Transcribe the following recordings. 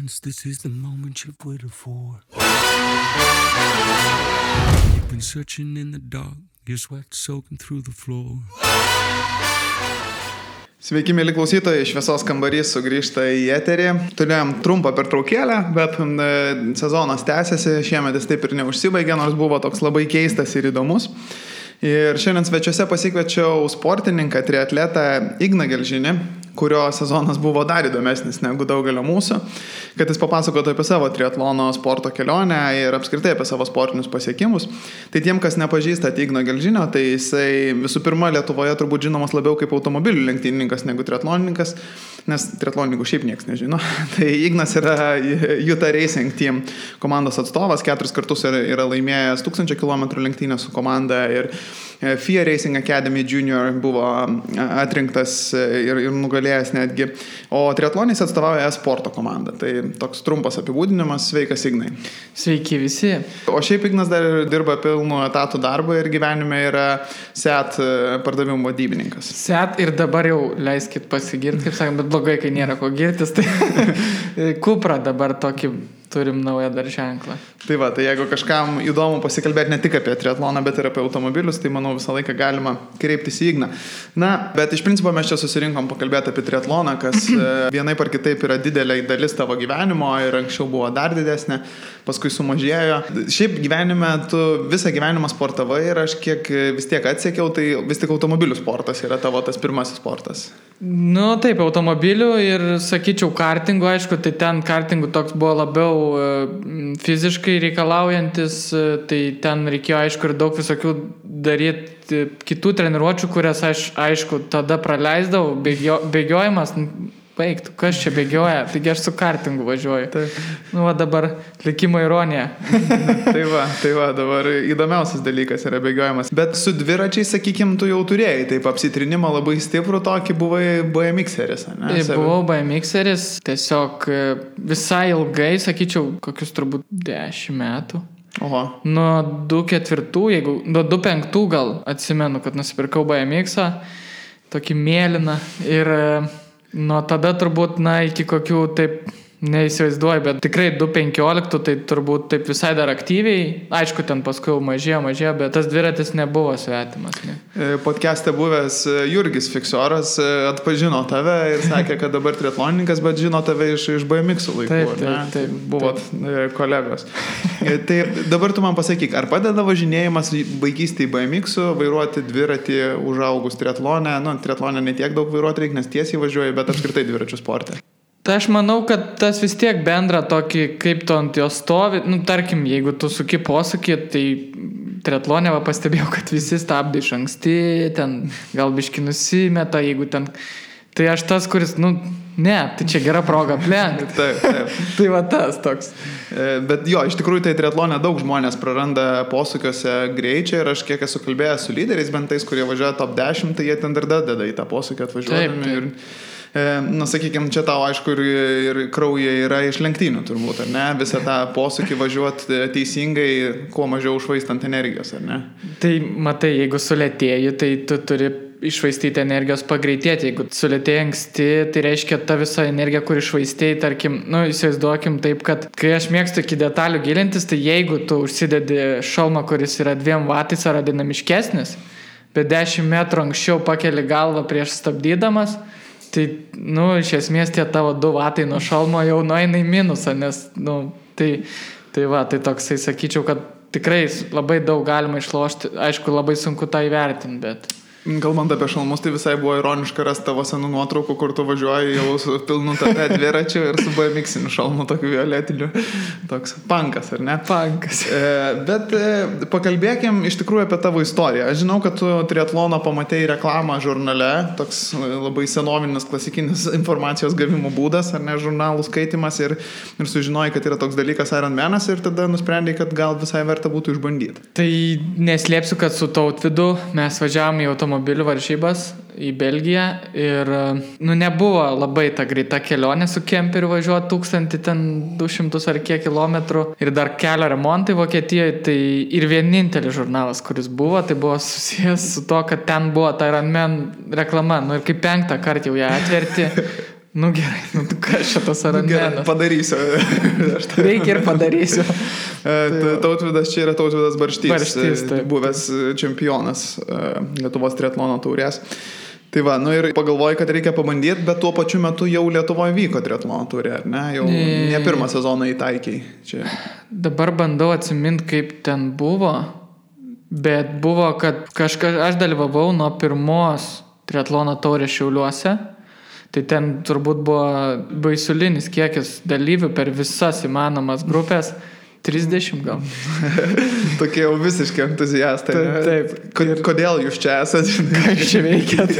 friends, this is the moment you've waited for. You've been searching in the dark, your sweat soaking through the floor. Sveiki, mėly klausytojai, Šviesos kambarys sugrįžta į eterį. Turėjom trumpą pertraukėlę, bet sezonas tęsiasi, šiemet jis taip ir neužsibaigė, nors buvo toks labai keistas ir įdomus. Ir šiandien svečiuose pasikviečiau sportininką, triatletą Igną Gelžinį, kurio sezonas buvo dar įdomesnis negu daugelio mūsų, kad jis papasakotų apie savo triatlono sporto kelionę ir apskritai apie savo sportinius pasiekimus. Tai tiem, kas nepažįsta Igno Gelžinio, tai jisai visų pirma Lietuvoje turbūt žinomas labiau kaip automobilių lenktynininkas negu triatlonininkas, nes triatlonininkų šiaip niekas nežino. Tai Ignas yra Utah Racing Team komandos atstovas, 4 kartus yra laimėjęs 1000 km lenktynę su komanda ir FIA Racing Academy Junior buvo atrinktas ir nugalėjęs netgi. O triatlonais atstovauja e-sporto komandą. Tai toks trumpas apibūdinimas. Sveikas, Ignai. Sveiki visi. O šiaip Ignas dar dirba pilnu etatų darbą ir gyvenime yra SEAT pardavimų vadybininkas. SEAT ir dabar jau leiskit pasigirti, kaip sakant, bet blogai, kai nėra ko girtis. Tai Cupra dabar tokį turim naują dar ženklą. Tai va, tai jeigu kažkam įdomu pasikalbėti ne tik apie triatloną, bet ir apie automobilius, tai manau visą laiką galima kreiptis į Igną. Na, bet iš principo mes čia susirinkom pakalbėti apie triatloną, kas vienaip ar kitaip yra didelė dalis tavo gyvenimo ir anksčiau buvo dar didesnė, paskui sumažėjo. Šiaip gyvenime tu visą gyvenimą sportavai ir aš kiek vis tiek atsekiau, tai vis tik automobilių sportas yra tavo tas pirmasis sportas. Nu taip, automobilių ir sakyčiau kartingų, aišku, tai ten kartingų toks buvo labiau fiziškai reikalaujantis, tai ten reikėjo aišku ir daug visokių daryti kitų treniruočių, kurias aš aišku tada praleisdavau, bėgiojimas, baigtų, kas čia bėgioja, taigi aš su kartingu važiuoju. Taip. Nu, va dabar likimo ironija. tai va, dabar įdomiausias dalykas yra bėgiojimas. Bet su dviračiais, sakykim, tu jau turėjai, taip apsitrinimą labai stiprų tokį, buvai BMXeris, ne? Buvau BMXeris, tiesiog visai ilgai, sakyčiau, kokius turbūt 10 metų. Oho. Nuo 2004, nuo 2005 gal atsimenu, kad nusipirkau BMXą, tokį mėlyną ir nuo tada turbūt, iki kokių taip neįsivaizduoju, bet tikrai 2015 tai turbūt taip visai dar aktyviai, aišku, ten paskui mažėjo, bet tas dviratis nebuvo svetimas. Ne? Podcast'e buvęs Jurgis Fiksoras atpažino tave ir sakė, kad dabar triatlonininkas, bet žino tave iš BMX laikų. Taip. Buvot kolegos. Tai dabar tu man pasakyk, ar padeda važinėjimas vaikystėje BMX-u, vairuoti dviratį užaugus triatlonę? Triatlonę netiek daug vairuoti reikia, nes tiesiai važiuoja, bet apskritai dviračių sporte. Tai aš manau, kad tas vis tiek bendra tokį, kaip tu ant jo stovi, tarkim, jeigu tu suki posūkį, tai triatlone pastebėjau, kad visi stabdo iš anksti, ten gal biški nusimeta, jeigu ten, tai aš tas, kuris, ne, tai čia gera proga aplenkti. Taip. Tai va tas toks. Bet jo, iš tikrųjų tai triatlone daug žmonės praranda posūkiuose greičio ir aš kiek esu kalbėjęs su lyderiais, bent tais, kurie važiuoja top 10, tai jie ten dar deda į tą posūkį atvažiuodami. Taip. Sakykime, čia tau aišku ir kraujai yra iš lenktynių turbūt, ar ne? Visą tą posūkį važiuoti teisingai, kuo mažiau užvaistant energijos, ar ne? Tai matai, jeigu sulėtėji, tai tu turi išvaistyti energijos pagreitėti. Jeigu sulėtėjai anksti, tai reiškia ta visa energija, kur išvaistėjai, tarkim, įsivaizduokim taip, kad kai aš mėgstu iki detalių gilintis, tai jeigu tu užsidedi šalmą, kuris yra 2 vatais ar dinamiškesnis, bet 10 metrų anksčiau pakeli galvą prieš stabdydamas, tai, iš esmės tie tavo 2 vatai nuo šalmo jau nueina į minusą, nes, tai toksai, sakyčiau, kad tikrai labai daug galima išlošti, aišku, labai sunku tą įvertinti, bet... Kalbant apie šalmus, tai visai buvo ironiška rasti tavo senų nuotraukų, kur tu važiuoji jau su pilnu tate dviračiu ir su BMX-iniu šalmu, tokiu violetiniu. Toks punkas, ar ne? Punkas. Bet pakalbėkim iš tikrųjų apie tavo istoriją. Aš žinau, kad tu triatlono pamatėjai reklamą žurnale, toks labai senovinis, klasikinis informacijos gavimo būdas, ar ne, žurnalų skaitimas ir sužinojai, kad yra toks dalykas Ironmanas ir tada nusprendėjai, kad gal visai verta būtų išbandyti. Tai neslėpsiu, kad su Tautvydu mes važiavome į automobilių varžybas į Belgiją ir nebuvo labai ta greita kelionė su kemperiu važiuoti 1200 ar kiek kilometrų ir dar kelio remontai Vokietijoje, tai ir vienintelis žurnalas, kuris buvo, tai buvo susijęs su to, kad ten buvo ta Ironman reklama, ir kaip 5 kartą jau ją atverti, Nu gerai, nu kas šitas Ironmanas? Padarysiu. Reikia ir padarysiu. Tautvydas čia yra Tautvydas Barštys, Barštys, taip. buvęs čempionas Lietuvos triatlono taurės. Tai va, nu ir pagalvoju, kad reikia pabandyti, bet tuo pačiu metu jau Lietuvoje vyko triatlono taurė, ar ne? Jau ne pirmą sezoną įtaikiai. Čia. Dabar bandau atsiminti, kaip ten buvo, bet buvo, kad aš dalyvavau nuo pirmos triatlono taurės Šiauliuose. Tai ten turbūt buvo baisulinis kiekis dalyvių per visas įmanomas grupės. 30 gal. Tokie jau visiškai entuziastai. Taip. Kodėl jūs čia esate? Ką jūs čia veikėt?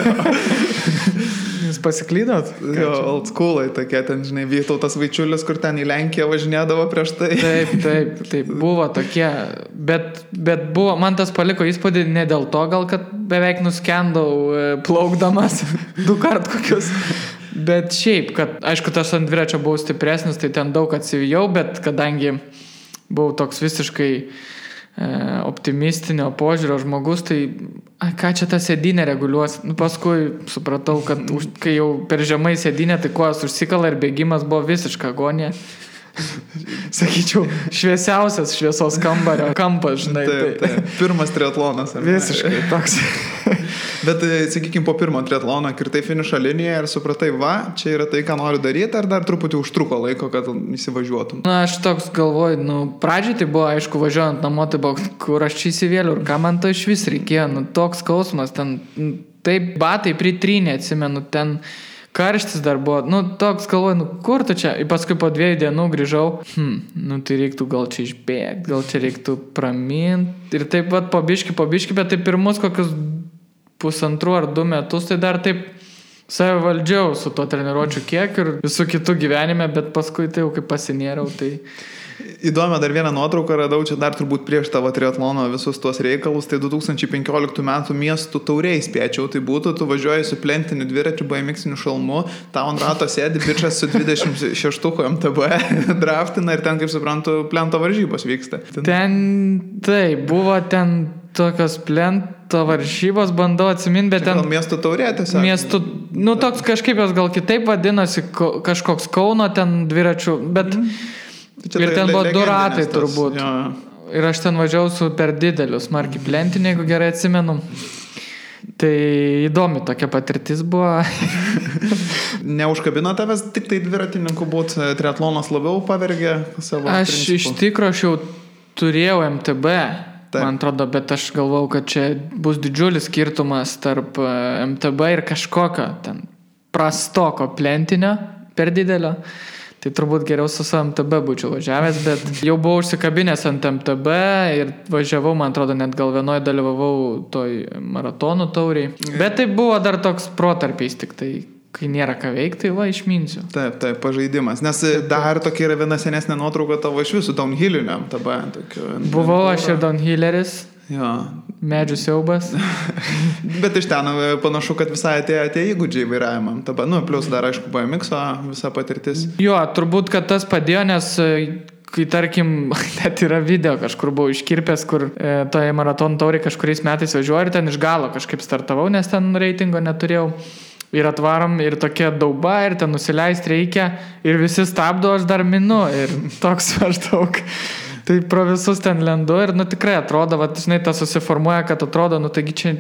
Jūs pasiklydot? Jo, old schoolai tokie, ten, žinai, Vytautas Vaičiulis, kur ten į Lenkiją važinėdavo prieš tai. Taip, buvo tokie, bet buvo, man tas paliko įspūdį ne dėl to, gal, kad beveik nuskendau plaukdamas 2 kart kokius, bet šiaip, kad, aišku, tas ant dviračio buvau stipresnis, tai ten daug atsivijau, bet kadangi buvau toks visiškai optimistinio požiūrio žmogus, tai ką čia tą sėdynę reguliuos? Nu, paskui supratau, kad kai jau per žemai sėdynę, tai kojas užsikala ir bėgimas buvo visiška agonija. Sakyčiau, šviesiausias šviesos kambario kampas, žinai. Taip. Pirmas triatlonas. Visiškai toks. Bet, sakykime, po pirmo triatlono kirtai finišo liniją ir supratai, va, čia yra tai, ką noriu daryti, ar dar truputį užtruko laiko, kad įsivažiuotum? Na, aš toks galvoju, pradžiai tai buvo, aišku, važiuojant namo, tai buvo, kur aš čia įsivėliau ir ką man to iš vis reikėjo, toks skausmas, ten, taip, batai pritrynė, atsimenu, ten karštis dar buvo, toks galvoju, kur tu čia? Ir paskui po 2 dienų grįžau, tai reiktų gal čia išbėgti, gal čia reiktų praminti. Ir taip pat po biški, bet tai pirmus kokius 1,5 ar 2 metus, tai dar taip save valdžiau su to treniruočių kiek ir visų kitų gyvenime, bet paskui tai jau kaip pasinėriau, tai... Įdomią dar vieną nuotrauką radau, čia dar turbūt prieš tavo triatlono visus tuos reikalus, tai 2015 metų miestų tauriai spėčiau, tai būtų, tu važiuoji su plentiniu dviračiu, BMX-iniu šalmu, tau ant rato sėdi bičas su 26 MTB, draftina ir ten, kaip suprantu, plento varžybos vyksta. Ten, tai, buvo ten tokios plento varžybos, bandau atsiminti, bet ten... Gal miestų taurė tiesiog? Miestų, toks kažkaip jos gal kitaip vadinosi, kažkoks Kauno ten dviračių, bet... Ir ten buvo 2 ratai turbūt. Jo. Ir aš ten važiavau su per dideliu smarkiai plentinį, jeigu gerai atsimenu. Tai įdomi tokia patirtis buvo. Neužkabino tavęs tik tai dviratininkų būt, triatlonas labiau pavergė savo Aš principų? Iš tikro aš jau turėjau MTB, man atrodo, bet aš galvau, kad čia bus didžiulis skirtumas tarp MTB ir kažkokio ten prastoko plentinio per didelio. Tai turbūt geriau su MTB būčiau važiavęs, bet jau buvau užsikabinęs ant MTB ir važiavau, man atrodo, net gal vienoje dalyvavau toj maratonų tauriai. Bet tai buvo dar toks protarpiais, tik tai, kai nėra ką veikti, tai va, išminsiu. Taip, pažaidimas. Nes dar tokia yra viena senesnė nuotrauka tavo iš visų downhillinių MTB. Buvau aš ir downhilleris. Jo. Medžių siaubas. Bet iš ten panašu, kad visai atėjo įgūdžiai vairavimam. Plius dar, aišku, BMX visa patirtis. Jo, turbūt, kad tas padėjo, nes kai, tarkim, net yra video kažkur buvau iškirpęs, kur toje maratonų tauriai kažkuriais metais važiuoju ir ten iš galo kažkaip startavau, nes ten reitingo neturėjau. Ir atvarom, ir tokia dauba, ir ten nusileisti reikia, ir visi stabdo, aš dar minu, ir toks maždaug. Tai pro visus ten lendu ir, tikrai atrodo, žinai, tas susiformuoja, kad atrodo, taigi čia,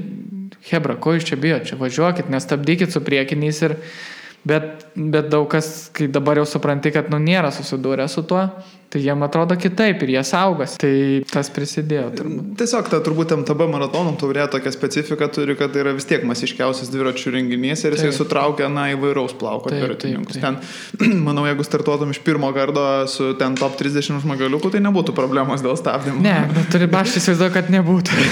hebra, ko jūs čia bijo, čia važiuokit, nestabdykit su priekiniais ir, bet daug kas, kai dabar jau supranti, kad, nėra susidūrę su tuo, tai jiem atrodo kitaip ir jie saugas, tai tas prisidėjo. Tiesiog ta turbūt MTB maratonų taurė tokia specifika turi, kad tai yra vis tiek masiškiausias dviračių renginys ir jisai sutraukia, įvairaus plauko dviratininkus. Ten, manau, jeigu startuotum iš pirmo karto su ten top 30 žmogaliukų, tai nebūtų problemos dėl stabdymo. Ne, bet aš įsivaizduoju, kad nebūtų.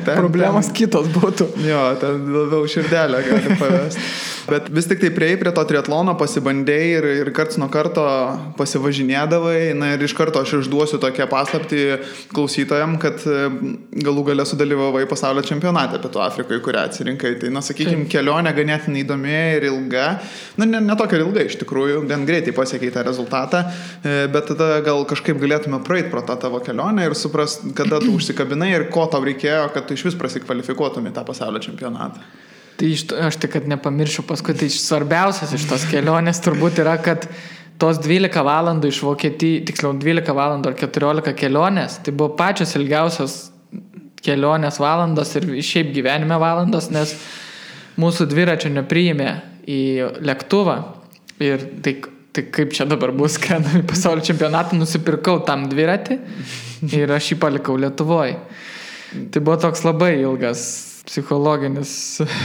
Problemos kitos būtų. Jo, ten labiau širdelę gali pavesti. Bet vis tik tai prieėjai prie to triatlono, pasibandėjai ir karts nuo karto pasivažinėdavai. Ir iš karto aš išduosiu tokią paslaptį klausytojam, kad galų gale sudalyvavai pasaulio čempionate Pietų Afrikoje, kurią atsirinkai. Tai, sakykime, kelionė ganėtinai įdomi ir ilga. Ne tokia ilga iš tikrųjų, gan greitai pasiekei tą rezultatą, bet tada gal kažkaip galėtume praeiti pro tą tavo kelionę ir suprast, kada tu užsikabinai ir ko tau reikėjo, kad tu iš vis prasikvalifikuotum į tą pasaulio čempionatą. Tai aš tik, kad nepamiršiu paskui, tai svarbiausias iš tos kelionės turbūt yra, kad tos 12 valandų iš Vokietijos, tiksliau 12 valandų ar 14 kelionės, tai buvo pačios ilgiausios kelionės valandos ir šiaip gyvenime valandos, nes mūsų dviračio nepriėmė į lėktuvą ir tai kaip čia dabar bus, kad į pasaulio čempionatą nusipirkau tam dviratį ir aš jį palikau Lietuvoje. Tai buvo toks labai ilgas psichologinis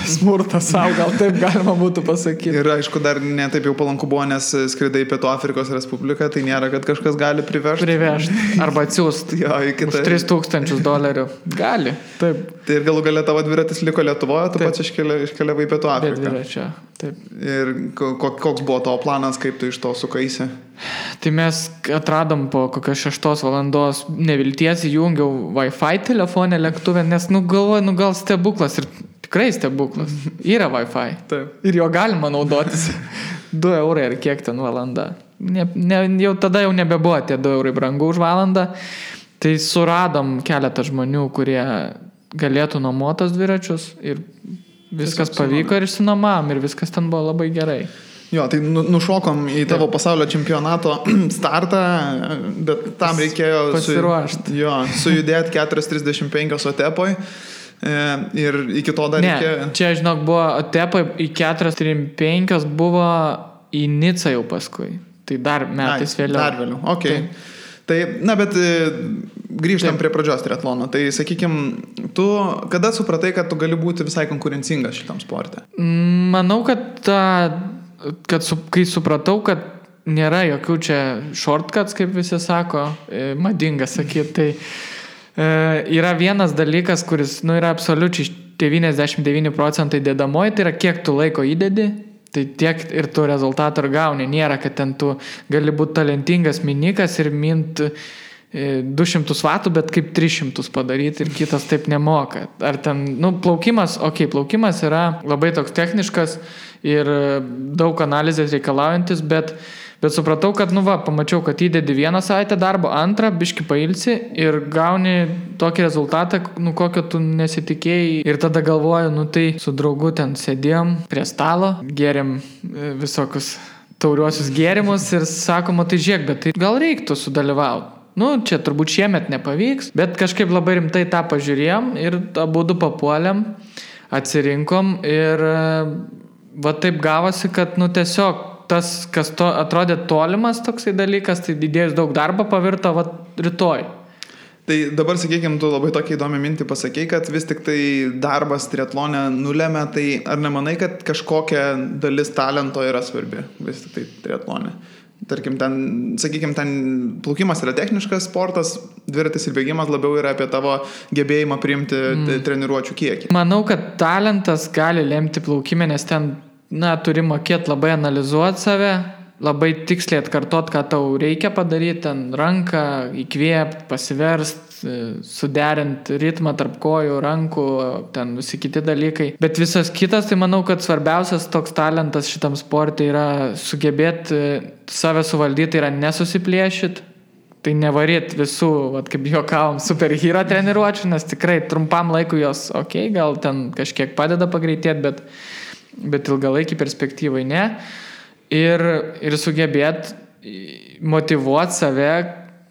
smurtas savo, gal taip galima būtų pasakyti. Ir aišku, dar netaip jau palanku buvo, nes skridai Pietų Afrikos Respubliką, tai nėra, kad kažkas gali privežti. Arba atsiųsti už $3,000. Gali, taip. Tai ir galų galia tavo dviratis liko Lietuvoje, tu pats iškeliavai Pietų Afriką. Dviračio, taip. Ir koks buvo tavo planas, kaip tu iš to sukaisi? Tai mes atradom po kokios 6 valandos nevilties, įjungiau Wi-Fi telefonę lėktuvę, nes galvoju, gal stebuklas ir tikrai stebuklas. Yra Wi-Fi. Taip. Ir jo galima naudotis. 2 eurai ar kiek ten valanda. Jau tada jau nebebuvo tie 2 eurai brangu už valandą. Tai suradom keletą žmonių, kurie galėtų nuomotos dviračius ir viskas pavyko ir išsinuomavom ir viskas ten buvo labai gerai. Jo, tai nušokom į tavo pasaulio čempionato startą, bet tam reikėjo sujudėti 4:35 Otepoj ir iki to dar reikėjo... Čia, žinok, buvo Otepoj į 4:35 buvo į Nicą jau paskui. Tai dar metais vėliau. Dar vėliau, okei. Tai, bet grįžtam prie pradžios triatlono. Tai, sakykime, tu kada supratai, kad tu gali būti visai konkurencingas šitam sporte? Manau, kad kai supratau, kad nėra jokių čia shortcuts, kaip visi sako, madinga sakyti, tai yra vienas dalykas, kuris yra absoliučiai 99% dedamoji, tai yra kiek tu laiko įdedi, tai tiek ir tu rezultatą ir gauni. Nėra, kad ten tu gali būti talentingas minikas ir mint 200 vatų, bet kaip 300 padaryti ir kitas taip nemoka. Ar ten, plaukimas yra labai toks techniškas ir daug analizės reikalaujantis, bet supratau, kad, pamačiau, kad įdedi 1 savaitę darbo, 2 biški pailsi ir gauni tokį rezultatą, kokio tu nesitikėjai. Ir tada galvoju, tai su draugu ten sėdėjom prie stalo, gėrėm visokius tauriuosius gėrimus ir sakoma, tai žiūrėk, bet tai gal reiktų sudalyvauti. Čia turbūt šiemet nepavyks, bet kažkaip labai rimtai tą pažiūrėjom ir abudu papuolėm, atsirinkom ir taip gavosi, kad tiesiog tas, kas atrodė tolimas toksai dalykas, tai didėjus daug darbo pavirto rytoj. Tai dabar, sakykime, tu labai tokia įdomi mintį pasakei, kad vis tik tai darbas triatlone nulėmė, tai ar nemanai, kad kažkokia dalis talento yra svarbi vis tik tai triatlone? Tarkim, ten plaukimas yra techniškas sportas, dviratis ir bėgimas labiau yra apie tavo gebėjimą priimti treniruočių kiekį. Manau, kad talentas gali lemti plaukimę, nes ten, turi mokėti labai analizuoti save, labai tiksliai atkartot, ką tau reikia padaryti, ten ranką įkvėpti, pasiverst, suderint ritmą tarp kojų, rankų, ten visi kiti dalykai. Bet visas kitas, tai manau, kad svarbiausias toks talentas šitam sportui yra sugebėti save suvaldyti, yra nesusiplėšyti. Tai nevaryt visų, kaip juokavom, superhero treniruočių, nes tikrai trumpam laikui jos, gal ten kažkiek padeda pagreitėti, bet ilgalaikį perspektyvai ne. Ir sugebėti motyvuoti save,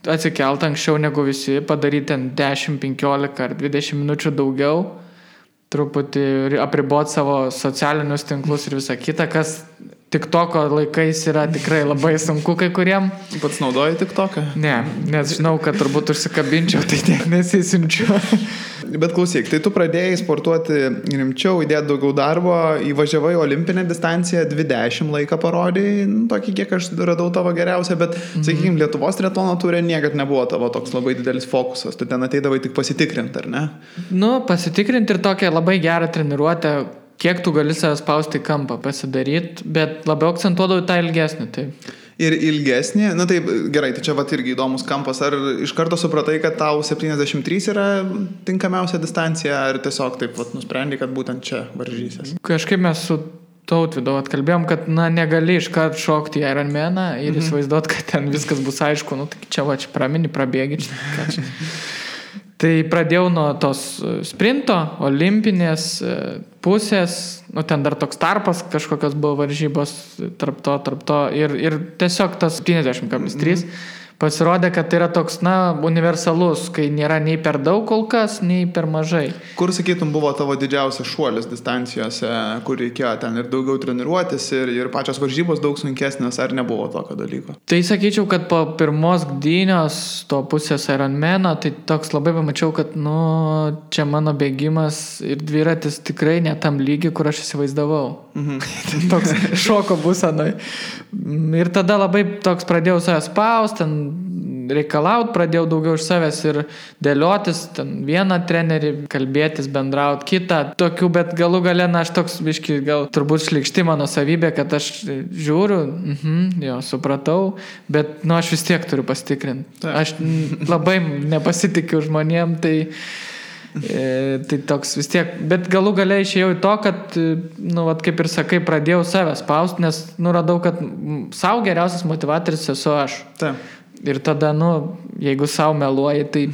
atsikelt anksčiau negu visi, padaryti ten 10, 15 ar 20 minučių daugiau, truputį apriboti savo socialinius tinklus ir visą kitą, kas TikToko laikais yra tikrai labai sunku kai kuriem. Pats naudoji TikToką? Ne, nes žinau, kad turbūt užsikabinčiau, tai tiek nesisinčiu. Bet klausyk, tai tu pradėjai sportuoti rimčiau, įdėti daugiau darbo, įvažiavai olimpinę distanciją, 20 laiką parodėjai, tokį kiek aš radau tavo geriausią, bet, sakykime, Lietuvos triatlono turė niekad nebuvo tavo toks labai didelis fokusas, tu ten ateidavai tik pasitikrinti, ar ne? Pasitikrinti ir tokią labai gerą treniruotę, kiek tu gali save spausti į kampą pasidaryti, bet labiau akcentuodavau tą ilgesnį, taip. Ir ilgesnį, taip, gerai, tai čia irgi įdomus kampas, ar iš karto supratai, kad tau 73 yra tinkamiausia distancija, ar tiesiog taip nusprendai, kad būtent čia varžysies? Kažkaip mes su Tautvydu atkalbėjom, kad negali iškart šokti į Ironmaną ir įsivaizduot, kad ten viskas bus aišku, tai čia pramini, prabėgi čia. Tai pradėjau nuo tos sprinto, olimpinės, pusės, nu ten dar toks tarpas, kažkokios buvo varžybos tarp to ir tiesiog tas 50,3 pasirodė, kad tai yra toks, universalus, kai nėra nei per daug kol kas, nei per mažai. Kur, sakytum, buvo tavo didžiausias šuolis distancijose, kur reikėjo ten ir daugiau treniruotis, ir pačios varžybos daug sunkesnės, ar nebuvo tokio dalyko? Tai sakyčiau, kad po pirmos gdynios to pusės Ironmano, tai toks labai pamačiau, kad, čia mano bėgimas ir dviratis tikrai ne tam lygi, kur aš įsivaizdavau. Toks šoko būsenoj. Ir tada labai toks pradėjau save spaust, ten reikalaut, pradėjau daugiau iš savęs ir dėliotis, ten vieną trenerį, kalbėtis, bendraut, kitą, tokių, bet galų gale, aš toks biški, gal turbūt šlikšti mano savybė, kad aš žiūriu, supratau, bet, aš vis tiek turiu pasitikrinti. Aš labai nepasitikiu žmonėm, tai toks vis tiek, bet galų gale išėjau į to, kad, kaip ir sakai, pradėjau save spaust, nes, radau, kad savo geriausias motivatorius esu aš. Taip. Ir tada, jeigu savo meluoji, tai,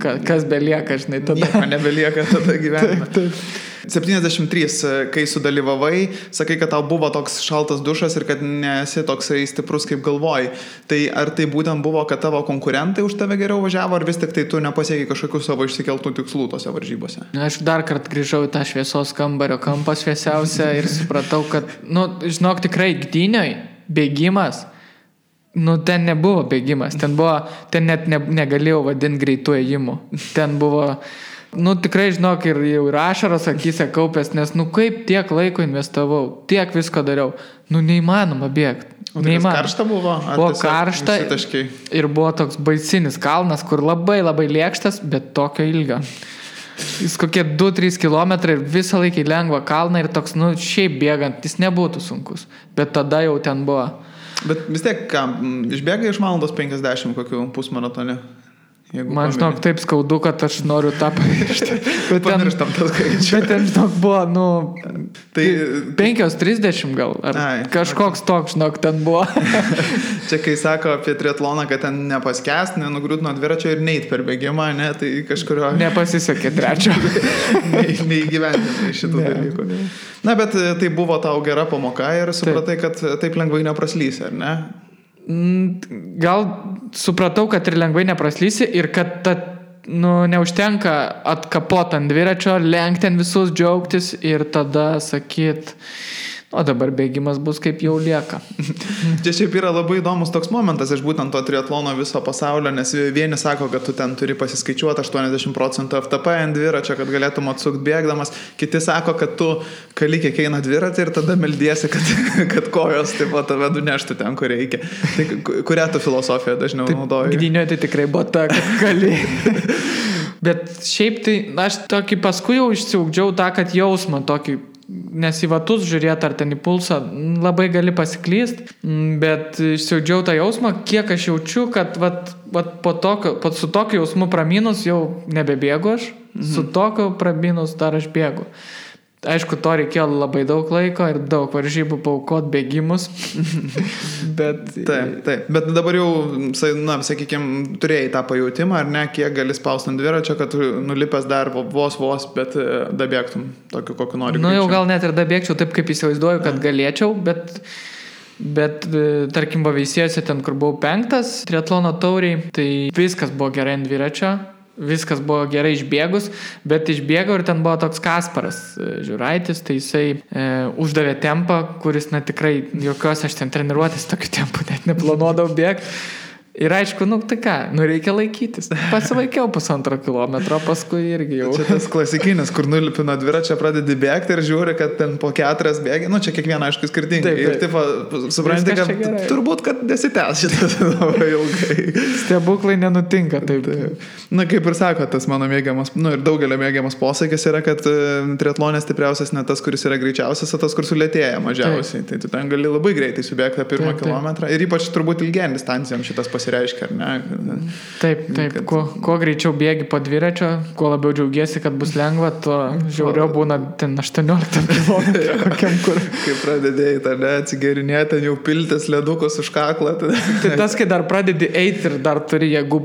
kas belieka, žinai, tada. Nieko nebelieka tada gyvenime. Taip. 73, kai sudalyvavai, sakai, kad tau buvo toks šaltas dušas ir kad nesi toksai stiprus, kaip galvoji. Tai ar tai būtent buvo, kad tavo konkurentai už tave geriau važiavo, ar vis tik tai tu nepasiekai kažkokių savo išsikeltų tikslų tose varžybose? Aš dar kartą grįžau į tą šviesos kambario kampą šviesiausią ir supratau, kad, žinok, tikrai gdynioj bėgimas, ten nebuvo bėgimas, ten net negalėjau vadinti greitų ėjimų. Ten buvo, tikrai, žinok, ir ašaros akyse kaupės, nes, kaip tiek laiko investavau, tiek visko dariau, neįmanoma bėgti. O tai karšta buvo? Buvo karšta ir buvo toks baisinis kalnas, kur labai labai lėkštas, bet tokio ilgio. Jis kokie 2-3 kilometrai ir visą laikį lengva kalną ir toks, šiaip bėgant, jis nebūtų sunkus, bet tada jau ten buvo. Bet vis tiek, išbėgai iš valandos 50 kokių pusmaratone? Man, žinok, taip skaudu, kad aš noriu tą pamiršti. Pamirštam tas skaičių. Bet ten, žinok, buvo, 5:30 gal. Kažkoks toks, žinok, ten buvo. Čia, kai sako apie triatloną, kad ten nepaskęst, nenugriūt nuo dviračio ir neit per bėgimą, tai kažkurio... Nepasisekė trečio. Neįgyvendinai šitų dalykų. Na, bet tai buvo tau gera pamoka ir supratai, kad taip lengvai nepraslysi, ar ne? Gal supratau, kad ir lengvai nepraslysi ir kad neužtenka atkapot ant dviračio, lenkti ant visus, džiaugtis ir tada sakyt, o dabar bėgimas bus kaip jau lieka. Čia šiaip yra labai įdomus toks momentas iš būtent to triatlono viso pasaulio, nes vieni sako, kad tu ten turi pasiskaičiuoti 80% FTP ant dviračio, kad galėtum atsukti bėgdamas, kiti sako, kad tu kali kiek eina dviratį ir tada meldiesi, kad kojos taip pat tave nuneštų ten, kur reikia. Tai kurią tu filosofiją dažniau naudoji? Gdynioje tai tikrai buvo ta, kad kali. Bet šiaip tai aš tokį paskui jau išsiugdžiau tą, kad jausmą tokį, nes į vatus žiūrėti ar ten į pulsą labai gali pasiklyst, bet išsiaudžiau tą jausmą, kiek aš jaučiu, kad su tokiu jausmu praminus jau nebebėgu aš, su tokiu praminus dar aš bėgu. Aišku, to reikėjo labai daug laiko ir daug varžybų paaukot bėgimus. Bet... Taip. Bet dabar jau, sakykime, turėjai tą pajautimą, ar ne, kiek gali spausti ant dviračio, kad nulipęs dar vos, bet dabėgtum tokiu, kokiu nori. Jau gal net ir dabėgčiau taip, kaip įsivaizduoju, kad galėčiau, bet tarkim, Veisiejose ten, kur buvau 5 triatlono tauriai, tai viskas buvo gerai ant dviračio. Viskas buvo gerai išbėgus, bet išbėgau ir ten buvo toks Kasparas Žiūraitis, tai jisai uždavė tempą, kuris, tikrai jokios aš ten treniruotės tokiu tempu net neplanuodavau bėgti. Ir aišku, tai ką, reikia laikytis. Pasilaikiau 1,5 kilometro, paskui irgi jau. Čia tas klasikinis, kur nulipi nuo dviračio, pradedi bėgti ir žiūri, kad ten po 4 bėgi. Čia kiekvieną, aišku, skirtingai. Ir taip, supranti, kad turbūt, kad nesitęs šitas labai ilgai. Stebuklai nenutinka taip. Kaip ir sako, tas mano mėgiamas, ir daugelio mėgiamas posakis yra, kad triatlonės stipriausias ne tas, kuris yra greičiausias, o tas, kur sulėtėja mažiausiai. Tai tu ten gali labai greitai subėgti tą 1 kilometrą. Ir ypač turbūt ilgiam distancijom šitas reiškia, ar ne? Taip. Kuo greičiau bėgi po dviračio, kuo labiau džiaugiesi, kad bus lengva, tuo žiauriau būna ten 18 km kokiam kur. Kai pradedėjai, atsigerinėti, ten jau piltis ledukus už kaklą. Tai tas, kai dar pradedi eiti ir dar turi, jeigu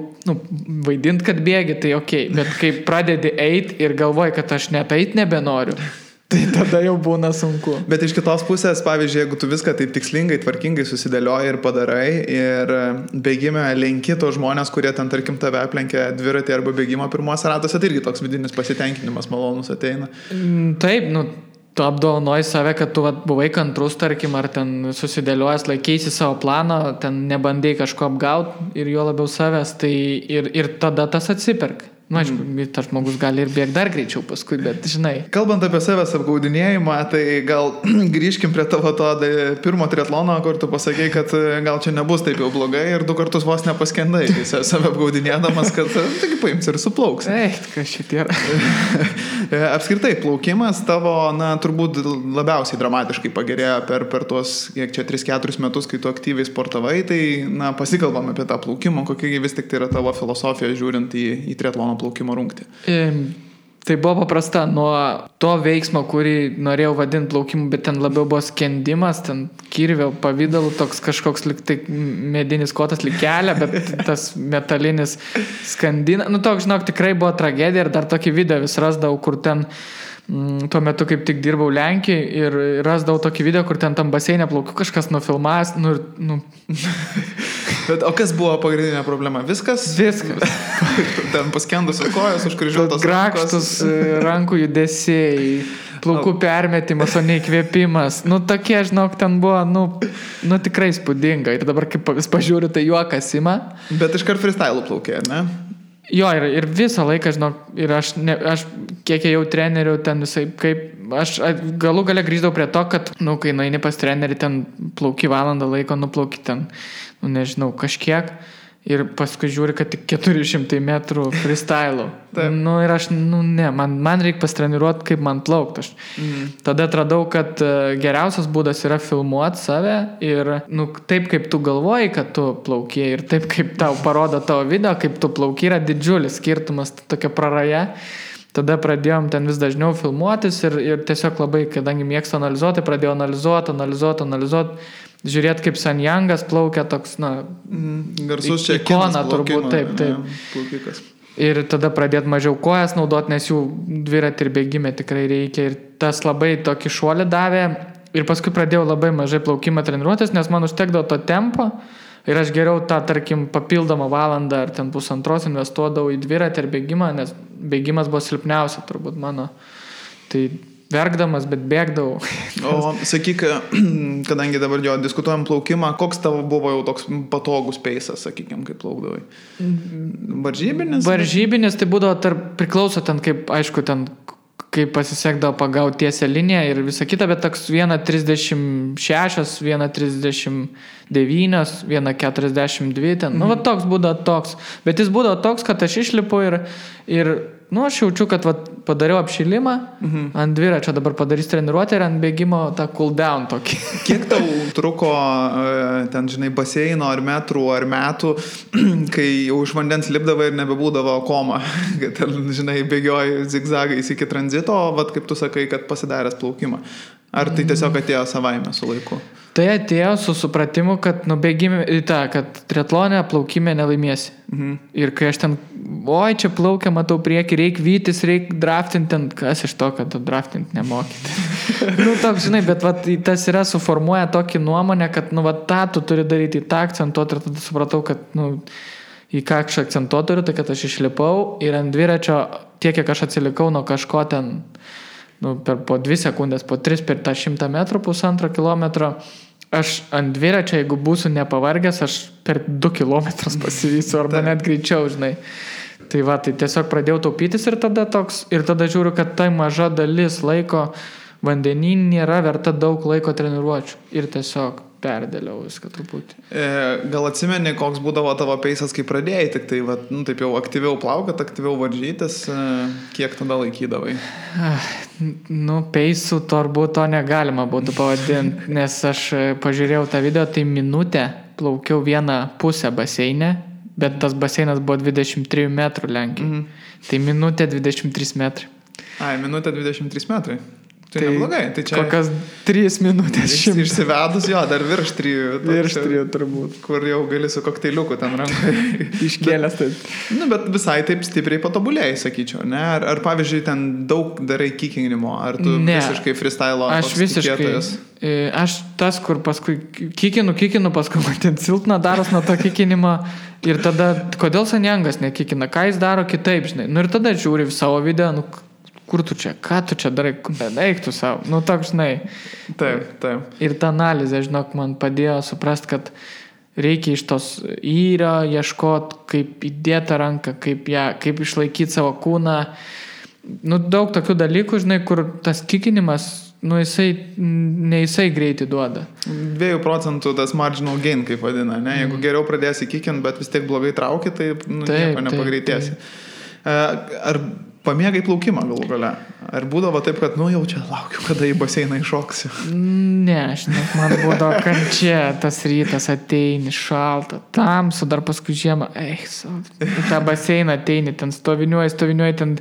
vaidinti, kad bėgi, tai okei. Bet kai pradedi eiti ir galvoji, kad aš net eiti nebenoriu, Tai tada jau būna sunku. Bet iš kitos pusės, pavyzdžiui, jeigu tu viską taip tikslingai, tvarkingai susidėlioji ir padarai ir bėgime lenki tos žmonės, kurie ten, tarkim, tave aplenkia dviratį arba bėgimo pirmuose ratuose, tai irgi toks vidinis pasitenkinimas malonus ateina. Taip, tu apdovanoji save, kad tu buvai kantrus, tarkim, ar ten susidėliojęs, laikeisi savo planą, ten nebandai kažko apgauti ir jo labiau savęs, tai ir tada tas atsiperka. Aišku, tas žmogus gali ir bėgti dar greičiau paskui, bet žinai. Kalbant apie savęs apgaudinėjimą, tai gal grįžkim prie tavo to pirmo triatlono, kur tu pasakei, kad gal čia nebus taip jau blogai ir 2 kartus vos nepaskendai, save apgaudinėdamas, kad taigi paims ir suplauks. Kas šitie yra. Apskritai, plaukimas tavo, turbūt labiausiai dramatiškai pagerėjo per tuos, kiek čia 3-4 metus, kai tu aktyviai sportavai, tai pasikalbam apie tą plaukimą, kokia vis tik tai yra tavo filosofija žiūrint į triatlono plaukimo rungtį. Tai buvo paprasta, nuo to veiksmo, kurį norėjau vadinti plaukimu, bet ten labiau buvo skendimas, ten kirvio pavidalu, toks kažkoks tai medinis kotas kelia, bet tas metalinis skandina. Toks, žinok, tikrai buvo tragedija ir dar tokį video vis rasdavau, kur ten tuo metu kaip tik dirbau Lenkijai ir rasdavau tokį video, kur ten tam baseinė plaukiu, kažkas nufilmavęs. Bet, o kas buvo pagrindinė problema? Viskas? Ten paskendusios kojos, užkryžiuotos grakštus rankų judesiai, plaukų permetimas, o ne įkvėpimas. Tokie, žinok, ten buvo, tikrai spūdinga. Ir dabar, kaip vis pažiūriu, tai juokas ima. Bet iškart freestyle plaukė, ne? Jo, ir visą laiką, žinok, ir aš kiek jau trenerių ten visai, kaip aš galų gale grįždavau prie to, kad, kai nueini pas trenerį, ten plauki valandą laiko, nuplauki ten, nežinau, kažkiek. Ir paskui žiūri, kad tik 400 metrų freestyle. Ir aš, man reikia pastreniruoti, kaip man plaukti. Tada atradau, kad geriausias būdas yra filmuoti save ir, taip kaip tu galvoji, kad tu plauki ir taip kaip tau parodo tavo video, kaip tu plauki, yra didžiulis skirtumas, tokia praraja. Tada pradėjom ten vis dažniau filmuotis ir tiesiog labai, kadangi mėgstu analizuoti, pradėjau analizuoti. Žiūrėt, kaip Sanjangas plaukia toks, garsus čia ikona turbūt, taip. Plaukikas. Ir tada pradėt mažiau kojas naudot, nes jų dviratį ir bėgime tikrai reikia. Ir tas labai tokį šuolį davė. Ir paskui pradėjau labai mažai plaukimą treniruotis, nes man užtekdavo to tempo. Ir aš geriau tą, tarkim, papildomą valandą ar ten 1,5 investuodavau į dviratį ir bėgimą, nes bėgimas buvo silpniausia turbūt mano. Tai verkdamas, bet bėgdavau. O sakyk, kadangi dabar diskutuojam plaukimą, koks tavo buvo jau toks patogus peisas, sakykime, kaip plaukdavai? Varžybinis? Varžybinis, tai būdavo priklauso ten, kaip, aišku, ten kaip pasisekdavo pagauti tiesią liniją ir visą kitą, bet toks 1,36, 1,39, 1,42 ten. Toks būdavo toks. Bet jis būdavo toks, kad aš išlipu ir aš jaučiu, kad padariau apšilimą ant dviračio, dabar padarys treniruotę ir ant bėgimo tą cool down tokį. Kiek tau truko ten, žinai, baseino ar metrų ar metų, kai jau iš vandens lipdavo ir nebebūdavo koma, kad ten, žinai, bėgioji zigzagais iki tranzito, kaip tu sakai, kad pasidaręs plaukimą. Ar tai tiesiog atėjo savaime su laiku? Tai atėjo su supratimu, kad kad triatlone plaukime nelaimėsi. Ir kai aš ten, čia plaukia, matau priekį, reikia vytis, reikia draftinti, ten, kas iš to, kad draftinti nemokyti. Toks, žinai, bet tas yra suformuoja tokį nuomonę, kad, tą tu turi daryti, tą akcentuoti ir tada supratau, kad, į ką aš akcentuoti turiu, tai kad aš išlipau ir ant dviračio tiek, kiek aš atsilikau nuo kažko ten, po 2 sekundės, po 3 per tą 100 metrų, 1,5 kilometro, aš ant dviračio, jeigu būsiu nepavargęs, aš per 2 kilometrus pasivysiu, arba net greičiau, žinai. Tai tai tiesiog pradėjau taupytis ir tada žiūriu, kad tai maža dalis laiko vandenyje nėra verta daug laiko treniruočių. Ir tiesiog perdėliau viską truputį. Gal atsimeni, koks būdavo tavo peisas, kai pradėjai, tik tai, taip jau aktyviau plaukat, aktyviau varžytis, kiek tada laikydavai? Peisų turbūt to negalima būtų pavadinti, nes aš pažiūrėjau tą video, tai minutę plaukiau 1,5 baseinę, bet tas baseinas buvo 23 metrų Lenkijai. Tai minutė 23 metrai. Minutė 23 metrai. Tai neblogai. Tai čia kokias 3 minutės šimtas. Išsivedus, jo, dar virš 3. Virš 3 turbūt. Kur jau gali su kokteiliuku ten rankai. Iškėlęs taip. Bet visai taip stipriai patobulėjai, sakyčiau, ne? Ar pavyzdžiui, ten daug darai kikinimo, ar tu visiškai freestyle? Aš visiškai. Tikėtojas? Aš tas, kur paskui kikinu, paskui man ten silpna daros nuo to kikinimo ir tada, kodėl Sanjangas nekikina, ką jis daro kitaip, žinai. Nu ir tada žiūri savo video, nu kur tu čia, ką tu čia darai, eik tu savo, nu toks, žinai. Taip. Ir ta analizė, žinok, man padėjo suprast, kad reikia iš tos įrio ieškoti, kaip įdėti ranką, kaip išlaikyti savo kūną. Nu, daug tokių dalykų, žinai, kur tas kikinimas, nu, jisai greitai duoda. 2% tas marginal gain, kaip vadina, ne? Jeigu geriau pradėsi kikinti, bet vis tiek blogai trauki, tai nieko nepagreitėsi. Ar pamėgai plaukimą galų gale? Ar būdavo taip, kad, jau čia laukiu, kada į baseiną iššoksiu? Ne, man būdavo kančia, tas rytas ateini, šalta, tamsu, dar paskui žiemą, į tą baseiną ateini, ten stoviniuoji, ten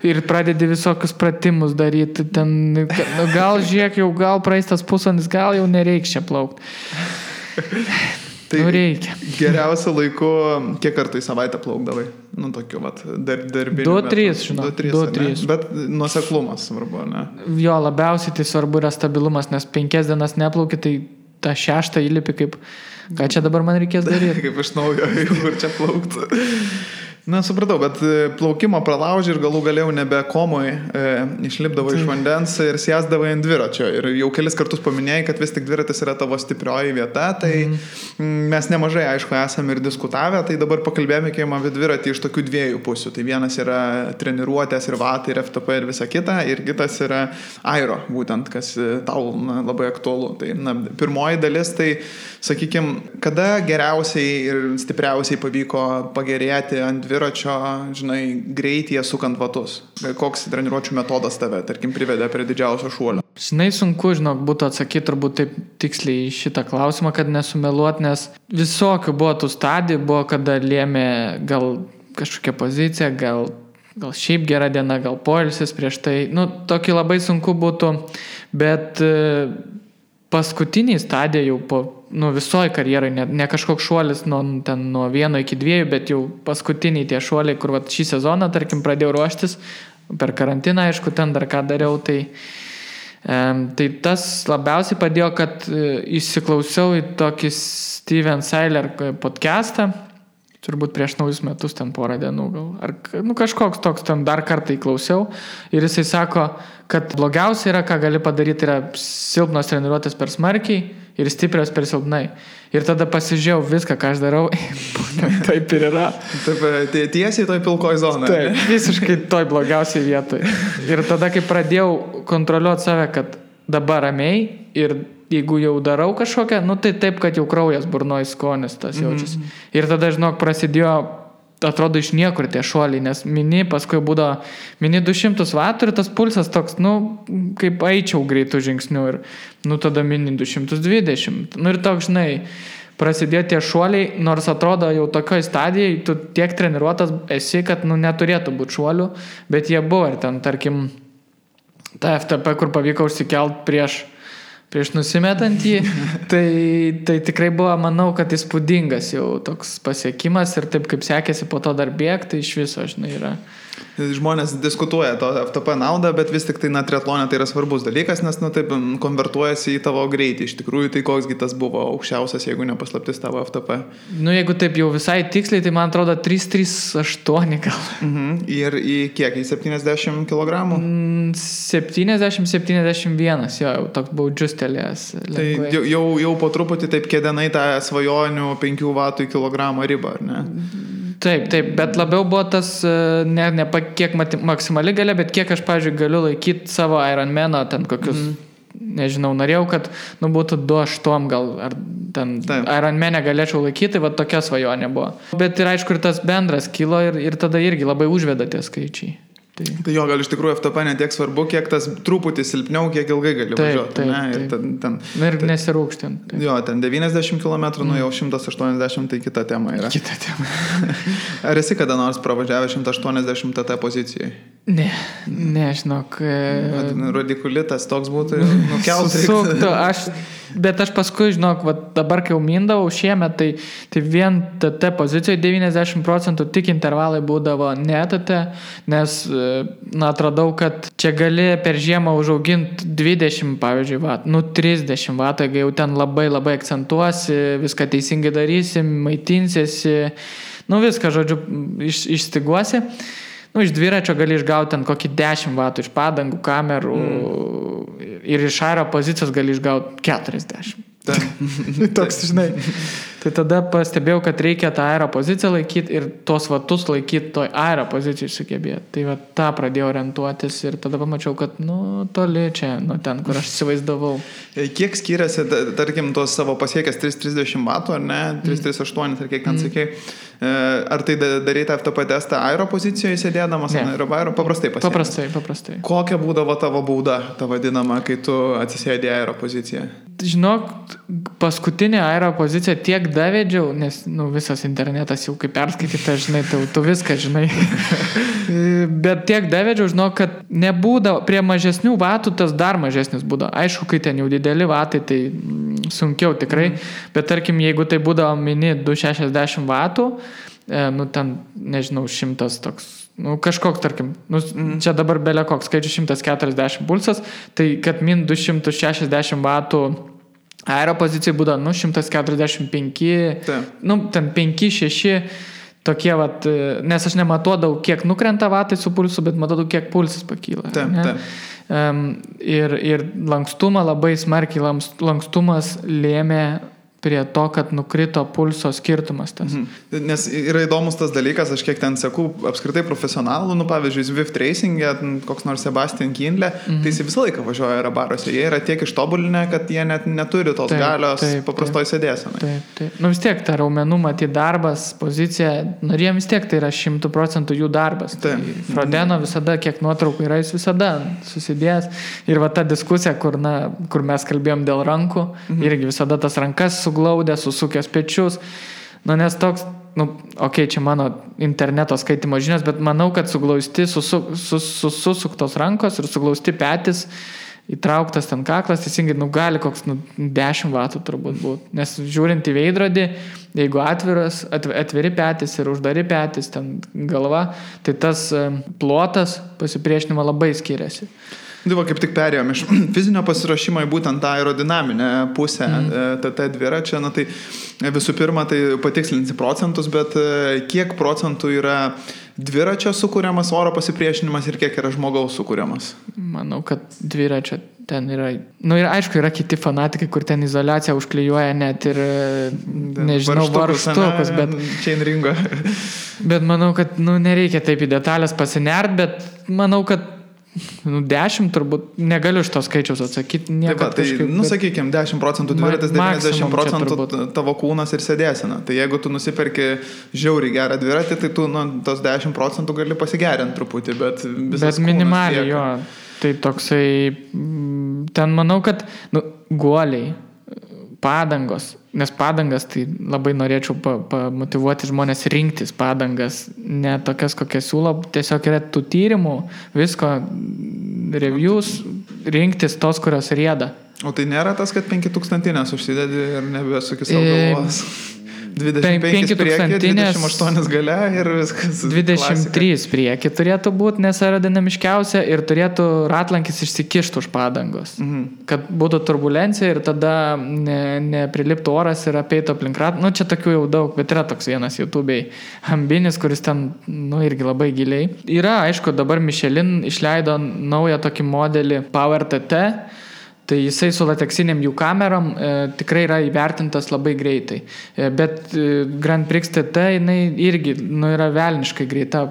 ir pradedi visokius pratimus daryti, ten, gal žiūrėk, jau gal praeis tas pusvalandis, gal jau nereiks čia plaukti. Tai reikia. Geriausiu laiku, kiek kartų į savaitę plaukdavai? Nu, tokiu, darbiniu. 2-3, žinau. 2-3. Bet nuoseklumas svarbu, ne? Jo, labiausiai tai svarbu yra stabilumas, nes 5 dienas neplauki, tai tą 6 įlipi kaip, ką čia dabar man reikės daryti. Kaip iš naujo, kur čia plaukti. Na, supratau, bet plaukimo pralauži ir galų galėjau nebe komui išlipdavo iš vandens ir sėsdavo ant dviračio. Ir jau kelis kartus paminėjai, kad vis tik dviratis yra tavo stiprioji vieta, tai mes nemažai, aišku, esame ir diskutavę, tai dabar pakalbėjome apie dviratį iš tokių 2 pusių. Tai vienas yra treniruotės ir vatai ir FTP ir visa kita, ir kitas yra aero, būtent, kas tau labai aktualu. Tai, pirmoji dalis, tai, sakykime, kada geriausiai ir stipriausiai pavyko pagerėti ant dviračio, žinai, greityje sukant vatus? Koks treniruočių metodas tave, tarkim, privedė prie didžiausio šuolio? Žinai, sunku, būtų atsakyti turbūt taip tiksliai šitą klausimą, kad nesumeluot, nes visokių buvo tų stadijų, buvo kada lėmė gal kažkokia pozicija, gal šiaip gera diena, gal poilsis prieš tai. Nu, tokį labai sunku būtų, bet paskutiniai stadija jau po visoji karjerai, ne kažkoks šuolis nuo 1 iki 2, bet jau paskutiniai tie šuoliai, kur šį sezoną, tarkim, pradėjau ruoštis, per karantiną, aišku, ten dar ką dariau, tai tas labiausiai padėjo, kad įsiklausiau į tokį Steven Seiler podcastą, turbūt prieš naujus metus ten porą dienų gal, ar kažkoks toks, ten dar kartą įklausiau ir jisai sako, kad blogiausia yra, ką gali padaryti, yra silpnos treniruotės per smarkiai ir stiprios per silpnai. Ir tada pasižiūrėjau viską, ką aš darau, taip ir yra. Taip, tiesiai toj pilkoj zonai. Taip, visiškai toj blogiausiai vietoj. Ir tada, kai pradėjau kontroliuoti save, kad dabar ramiai ir jeigu jau darau kažkokią, tai taip, kad jau kraujas burnoje skonis tas jaučiasi. Ir tada, žinok, prasidėjo, atrodo, iš niekur tie šuoliai, nes paskui būdavo 200 vatų ir tas pulsas toks, kaip eičiau greitų žingsnių ir, tada 220. Ir toks, žinai, prasidėjo tie šuoliai, nors atrodo jau tokioj stadijai, tu tiek treniruotas esi, kad, neturėtų būti šuolių, bet jie buvo ir ten, tarkim, ta FTP, kur pavyko užsikelt prieš nusimetant jį, tai tikrai buvo, manau, kad įspūdingas jau toks pasiekimas ir taip kaip sekėsi po to dar bėgti, tai iš viso, žinai, yra. Žmonės diskutuoja to FTP naudą, bet vis tik tai triatlone tai yra svarbus dalykas, nes taip konvertuojasi į tavo greitį. Iš tikrųjų, tai koksgi tas buvo aukščiausias, jeigu nepaslaptis tavo FTP? Jeigu taip jau visai tiksliai, tai man atrodo 338 gal. Ir į kiek? Į 70 kg? 70-71, jau toks buvau džiustelėjęs. Tai jau po truputį taip kėdenai tą svajonių 5 vatų į kilogramą ribą, ar ne? Taip, bet labiau buvo tas, ne kiek maksimali galia, bet kiek aš, pavyzdžiui, galiu laikyti savo Ironmano, ten kokius, nežinau, norėjau, kad būtų 2,8 gal, ar ten Ironmane galėčiau laikyti, va tokia svajonė buvo. Bet ir aišku, ir tas bendras kilo ir tada irgi labai užveda tie skaičiai. Tai jo, gal iš tikrųjų FTP netiek svarbu, kiek tas truputį silpniau, kiek ilgai gali važiuoti. Ir ir nesirūkštinti. Jo, ten 90 km, nu jau 180, tai kita tema yra. Kita tema. Ar esi kada nors pravažiavęs 180 TT pozicijai? Ne, žinok. Radikulitas toks būtų nukeltas. Susuktų, bet aš paskui, žinok, dabar kai jau mindavau šiemet, tai vien TT pozicijoje 90% tik intervalai būdavo ne TT, nes atradau, kad čia gali per žiemą užauginti 20, pavyzdžiui, 30 vatų, jeigu jau ten labai akcentuosi, viską teisingai darysi, maitinsiesi, viską, žodžiu, išstiguosi. Iš dviračio gali išgauti ten kokį 10 vatų iš padangų, kamerų ir iš aero pozicijos gali išgauti 40. Toks, žinai. Tai tada pastebėjau, kad reikia tą aero poziciją laikyti ir tos vatus laikyti toj aero pozicijai sugebėti. Tai tą pradėjau orientuotis ir tada pamačiau, kad toli čia, ten, kur aš įsivaizdavau. Kiek skiriasi, tarkim, tos savo pasiekęs 330 vatų, ar ne, 338, ar kiek ten sakei, ar tai daryti FTP testą aero pozicijoje sėdėdamas, ar aero? Paprastai pasiekęs. Paprastai. Kokia būdavo tavo bauda, ta vadinama, kai tu atsisėdė aero poziciją? Žinok, paskutinė aero pozicija tiek davedžiau, nes visas internetas jau kaip perskaityta, žinai, tu viską žinai. Bet tiek davedžiau, žinok, kad nebūdavo, prie mažesnių vatų tas dar mažesnis būdavo. Aišku, kai ten jau dideli vatai, tai sunkiau tikrai, bet tarkim, jeigu tai būdavo mini 260 vatų, ten, nežinau, 100 toks, kažkoks, tarkim, čia dabar belė koks skaičius 140 pulsas, tai kad min 260 vatų aero pozicijai būdavo, 145, ten 5-6 tokie, nes aš nematuodavau, kiek nukrenta vatai su pulsu, bet matodavau, kiek pulsas pakyla. Ir lankstumą labai smarkiai, lankstumas lėmė prie to, kad nukrito pulso skirtumas tas. Nes yra įdomus tas dalykas, aš kiek ten seku apskritai profesionalų, pavyzdžiui, Zwift Racing'e, koks nors Sebastian Kindle, tai jis visą laiką važiuoja aerobaruose. Jie yra tiek ištobulinę, kad jie net neturi tos galios paprastoj sėdėsenai. Taip. Vis tiek ta raumenų matyti darbas, pozicija, jiem vis tiek tai yra 100% jų darbas. Tai Frodeno visada, kiek nuotraukų yra, jis visada susidėjęs. Ir ta diskusija, kur mes kalbėjom dėl rankų, irgi visada tas rankas suglaudė, susukęs pečius. Nes toks, čia mano interneto skaitimo žinios, bet manau, kad suglausti, susuktos rankos ir suglausti petis, įtrauktas ten kaklas, teisingai, gali koks 10 vatų turbūt būti. Nes žiūrint į veidrodį, jeigu atviri petis ir uždari petis, ten galva, tai tas plotas pasipriešinimo labai skiriasi. Kaip tik perėjom iš fizinio pasiruošimo į būtent tą aerodinaminę pusę TT dviračio, tai visų pirma, tai patikslinti procentus, bet kiek procentų yra dviračio sukūriamas oro pasipriešinimas ir kiek yra žmogaus sukūriamas? Manau, kad dviračio ten yra, ir aišku, yra kiti fanatikai, kur ten izoliaciją užklijuoja net ir, nežinau, varžtukus, bet chain ringo. Bet manau, kad, nereikia taip į detalės pasinert, bet manau, kad 10 turbūt, negaliu iš to skaičiaus atsakyti. Sakykime, 10% dviratis, 90% tavo kūnas ir sėdėsena. Tai jeigu tu nusiperki žiauriai gerą dviratį, tai tu tos 10% gali pasigerinti truputį, bet visas minimaliai, jo. Tai toksai, ten manau, kad guoliai, padangos, nes padangas, tai labai norėčiau pamotivuoti žmonės rinktis padangas, ne tokias, kokias siūlo, tiesiog yra tų tyrimų, visko, reviews, rinktis tos, kurios rieda. O tai nėra tas, kad 5000 užsidedi ir nebesukis savo galvos? 25 priekį, 28 gale ir viskas. 23 priekį turėtų būti, nes aerodinamiškiausia ir turėtų ratlankis išsikišti už padangos. Kad būtų turbulencija ir tada nepriliptų oras ir apeitų aplink ratlanką. Čia tokių jau daug, bet yra toks vienas YouTube'ai Ambinis, kuris ten, irgi labai giliai. Yra, aišku, dabar Michelin išleido naują tokį modelį Power TT. Tai jisai su lateksiniam jų kamerom tikrai yra įvertintas labai greitai. Bet Grand Prix TT jinai irgi yra velniškai greita.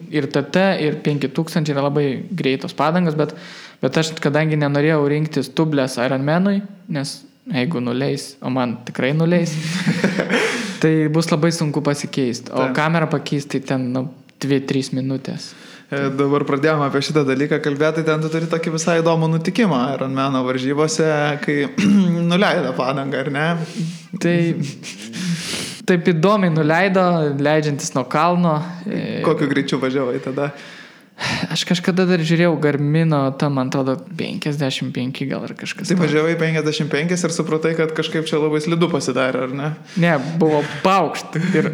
Ir TT, ir 5000 yra labai greitos padangos, bet aš kadangi nenorėjau rinktis tublės Ironmanui, nes jeigu nuleis, o man tikrai nuleis, tai bus labai sunku pasikeisti. O kamerą pakeisti ten 2-3 minutės. Dabar pradėjome apie šitą dalyką kalbėti, ten tu turi tokį visai įdomų nutikimą Ironmano varžybose, kai nuleido padangą, ar ne? Tai taip įdomiai nuleido, leidžiantis nuo kalno. Kokiu greičiu važiavai tada? Aš kažkada dar žiūrėjau Garmino, tam man atrodo 55 gal ar kažkas. Tai važiavai 55 ir supratai, kad kažkaip čia labai slidu pasidarė, ar ne? Ne, buvo paukšt ir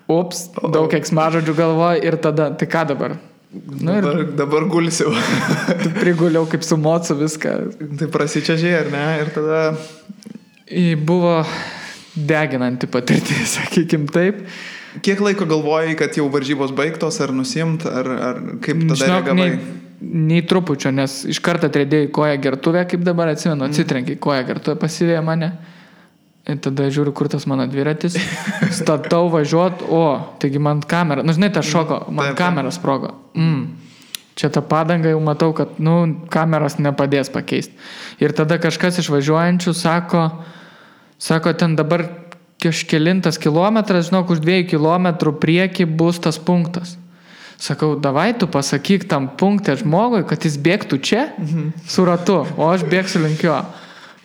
daug keiksmažodžių galvoju ir tada, tai ką dabar? Dabar gulsiu. Priguliau kaip su mocu viską. Tai prasičiažiai, ar ne? Ir tada... Buvo deginanti patirtis, sakykim taip. Kiek laiko galvojai, kad jau varžybos baigtos, ar nusimt, ar kaip tada reagavai? Nei trupučio, nes iš karto atrėdėjai koją gertuvę, kaip dabar atsimenu, atsitrenkiai koją gertuvę, pasivėjo mane. Ir tada žiūriu, kur tas mano dviratis. Statau važiuot, taigi man kamera, žinai, tas šoko, man kamera sprogo. Čia ta padanga jau matau, kad, kameros nepadės pakeisti. Ir tada kažkas iš važiuojančių sako, ten dabar kažkelintas kilometras, žinok, už 2 kilometrų prieki bus tas punktas. Sakau, davai tu pasakyk tam punktę žmogui, kad jis bėgtų čia su ratu, o aš bėgsiu link jo.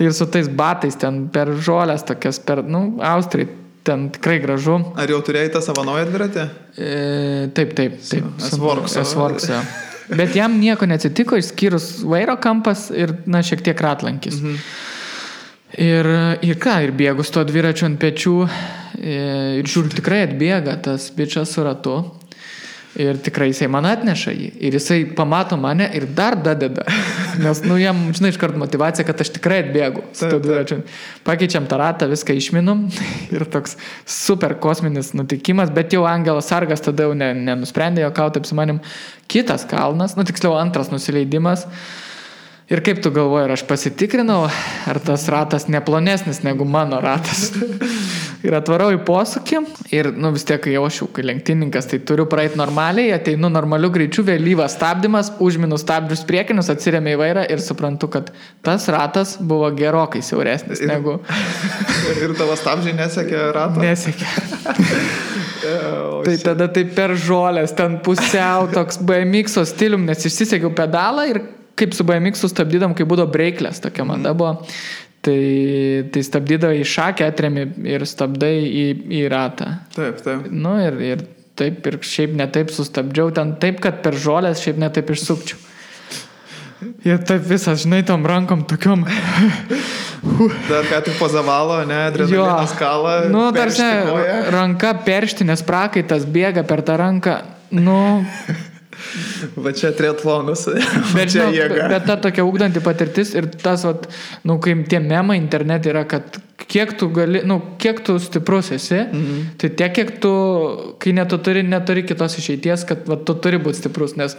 Ir su tais batais ten per žolės tokias, Austrai, ten tikrai gražu. Ar jau turėjai tą savo naują dviratį? Taip. S-Works. Bet jam nieko neatsitiko, išskyrus vairo kampas ir, šiek tiek ratlankis. Ir bėgu su to dviračiu ant pečių ir žiūriu, tikrai atbėga tas bičas su ratu ir tikrai jisai man atneša jį ir jisai pamato mane ir dar dadeda, nes, jam, žinai, iškart motivacija, kad aš tikrai atbėgu su to dviračiu. Pakeičiam tą ratą, viską išminum ir toks super kosminis nutikimas, bet jau Angelas Sargas tada jau nenusprendė juokauti, taip su manim, kitas kalnas, tiksliau antras nusileidimas. Ir kaip tu galvoji, ar aš pasitikrinau, ar tas ratas neplonesnis negu mano ratas. Ir atvarau į posūkį ir, vis tiek, kai aš jau kai lenktyninkas, tai turiu praeiti normaliai, ateinu normaliu greičiu, vėlyvas stabdymas, užminu stabdžius priekinius, atsiremiu į vairą ir suprantu, kad tas ratas buvo gerokai siauresnis negu... Ir tavo stabdžiai nesekė ratą? Nesekė. Tai tada tai per žolės, ten pusiau toks BMX-o stilium, nes išsisekiau pedalą ir kaip su BMX-u stabdydam, kai būdavo breiklės, tokia mada buvo, tai stabdydavai į šakę, atremi ir stabdai į ratą. Taip. Ir taip, ir šiaip netaip sustabdžiau, ten taip, kad per žolės šiaip netaip išsukčiau. Ir taip visas, žinai, tom rankom tokiom... Dar ką tik pozavalo, adrenalinas kala, tarsi ranka perštinės prakaitas bėga per tą ranką, Va čia triatlonas, čia jėga. Bet ta tokia ugdanti patirtis ir tas, kai tie memai internete yra, kad kiek tu gali, kiek tu stiprus esi, tai tiek, kiek tu, kai neturi kitos išeities, kad tu turi būti stiprus, nes,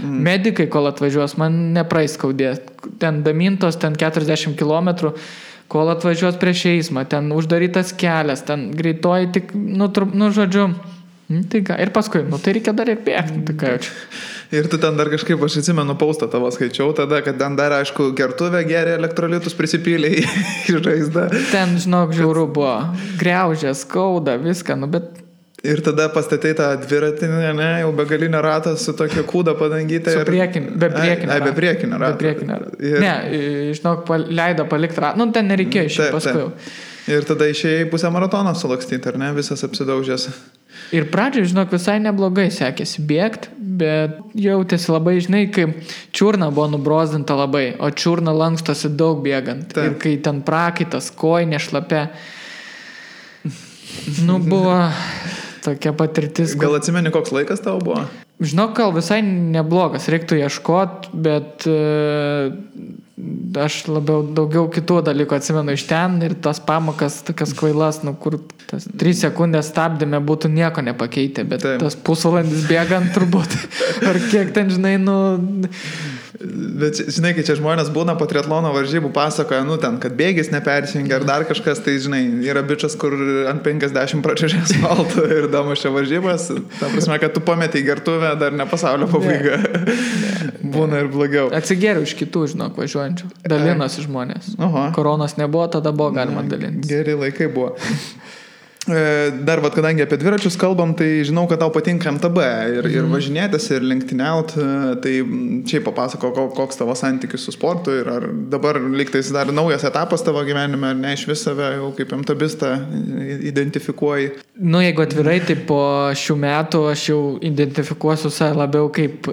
medikai, kol atvažiuos, man nepraeis skaudės. Ten damintos, ten 40 kilometrų, kol atvažiuos prieš eismą, ten uždarytas kelias, ten greitoji tik, žodžiu... Tai ką, ir paskui, tai reikia dar ir bėgti, tai ką jaučiu. Ir tu ten dar kažkaip, aš atsimenu, paustą tavo skaičiau tada, kad ten dar, aišku, gertuvę geria elektrolitus prisipylė į žaizdą. Ten, žinok, žiauru buvo, griaužė, skauda, viską, bet... Ir tada pastatei tą dviratį, jau begalinio ratą su tokia kūda padangyta. Su priekinio. Be priekinio rato. Ne, žinok, leido palikti ratą, ten nereikėjo išėjti paskui. Ir tada išėjai pusę maratoną sulakstyti, ar ne, visas apsidaužęs. Ir pradžioje, žinok, visai neblogai sekėsi bėgti, bet jautėsi labai, žinai, kai čiurna buvo nubrozdinta labai, o čiurna lankstosi daug bėgant. Taip. Ir kai ten prakaitas, kojinė šlapia, buvo tokia patirtis. Gal atsimeni, koks laikas tavo buvo? Žinok, gal visai neblogas, reiktų ieškot, bet aš daugiau kitų dalykų atsimenu iš ten ir tas pamokas tokias kvailas, kur tas 3 sekundės stabdėme būtų nieko nepakeitę, bet taip. Tas pusvalandis bėgant turbūt, ar kiek ten, žinai, Bet, žinai, kai čia žmonės būna po triatlono varžybų pasakoja, ten, kad bėgis nepersijungia ar dar kažkas, tai, žinai, yra bičas, kur ant 50 pračiužė asfaltų ir damušia varžybas, ta prasme, kad tu pametei gertuvę, dar ne pasaulio pabaiga. Būna ir blogiau. Atsigeriau iš kitų, žinok, važiuojančių. Dalinosi žmonės. Koronos nebuvo, tada buvo galima dalintis. Geri laikai buvo. Dar, kadangi apie dviračius kalbam, tai žinau, kad tau patinka MTB ir važinėtis, ir lenktyniauti, tai čia papasako, koks tavo santykis su sportu ir ar dabar lygtais dar naujas etapas tavo gyvenime, ar ne iš vis save jau kaip MTBistą identifikuoji? Nu, jeigu atvirai, tai po šių metų aš jau identifikuosiu save labiau kaip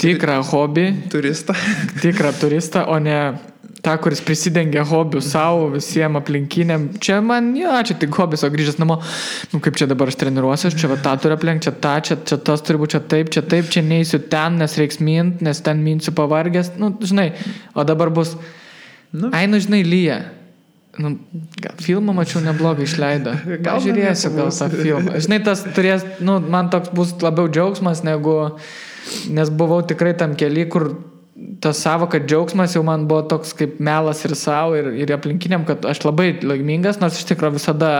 tikrą hobį. Turistą. Tikrą turistą, o ne tą, kuris prisidengia hobių savo, visiems aplinkiniam. Čia man, čia tik hobis, o grįžęs namo, kaip čia dabar aš treniruosiu, čia va tą turiu aplink, čia tą, čia tas turi būti, čia taip, čia neįsiu ten, nes reiks mint, nes ten minsiu pavargęs, žinai, o dabar bus, žinai, lyja. Gal filmą mačiau neblogą išleido. Gal žiūrėsiu gal tą filmą. Žinai, tas turės, man toks bus labiau džiaugsmas, nes buvau tikrai tam kely, kur tas savoka džiaugsmas jau man buvo toks kaip melas ir savo ir aplinkiniam, kad aš labai laimingas, nors iš tikrųjų visada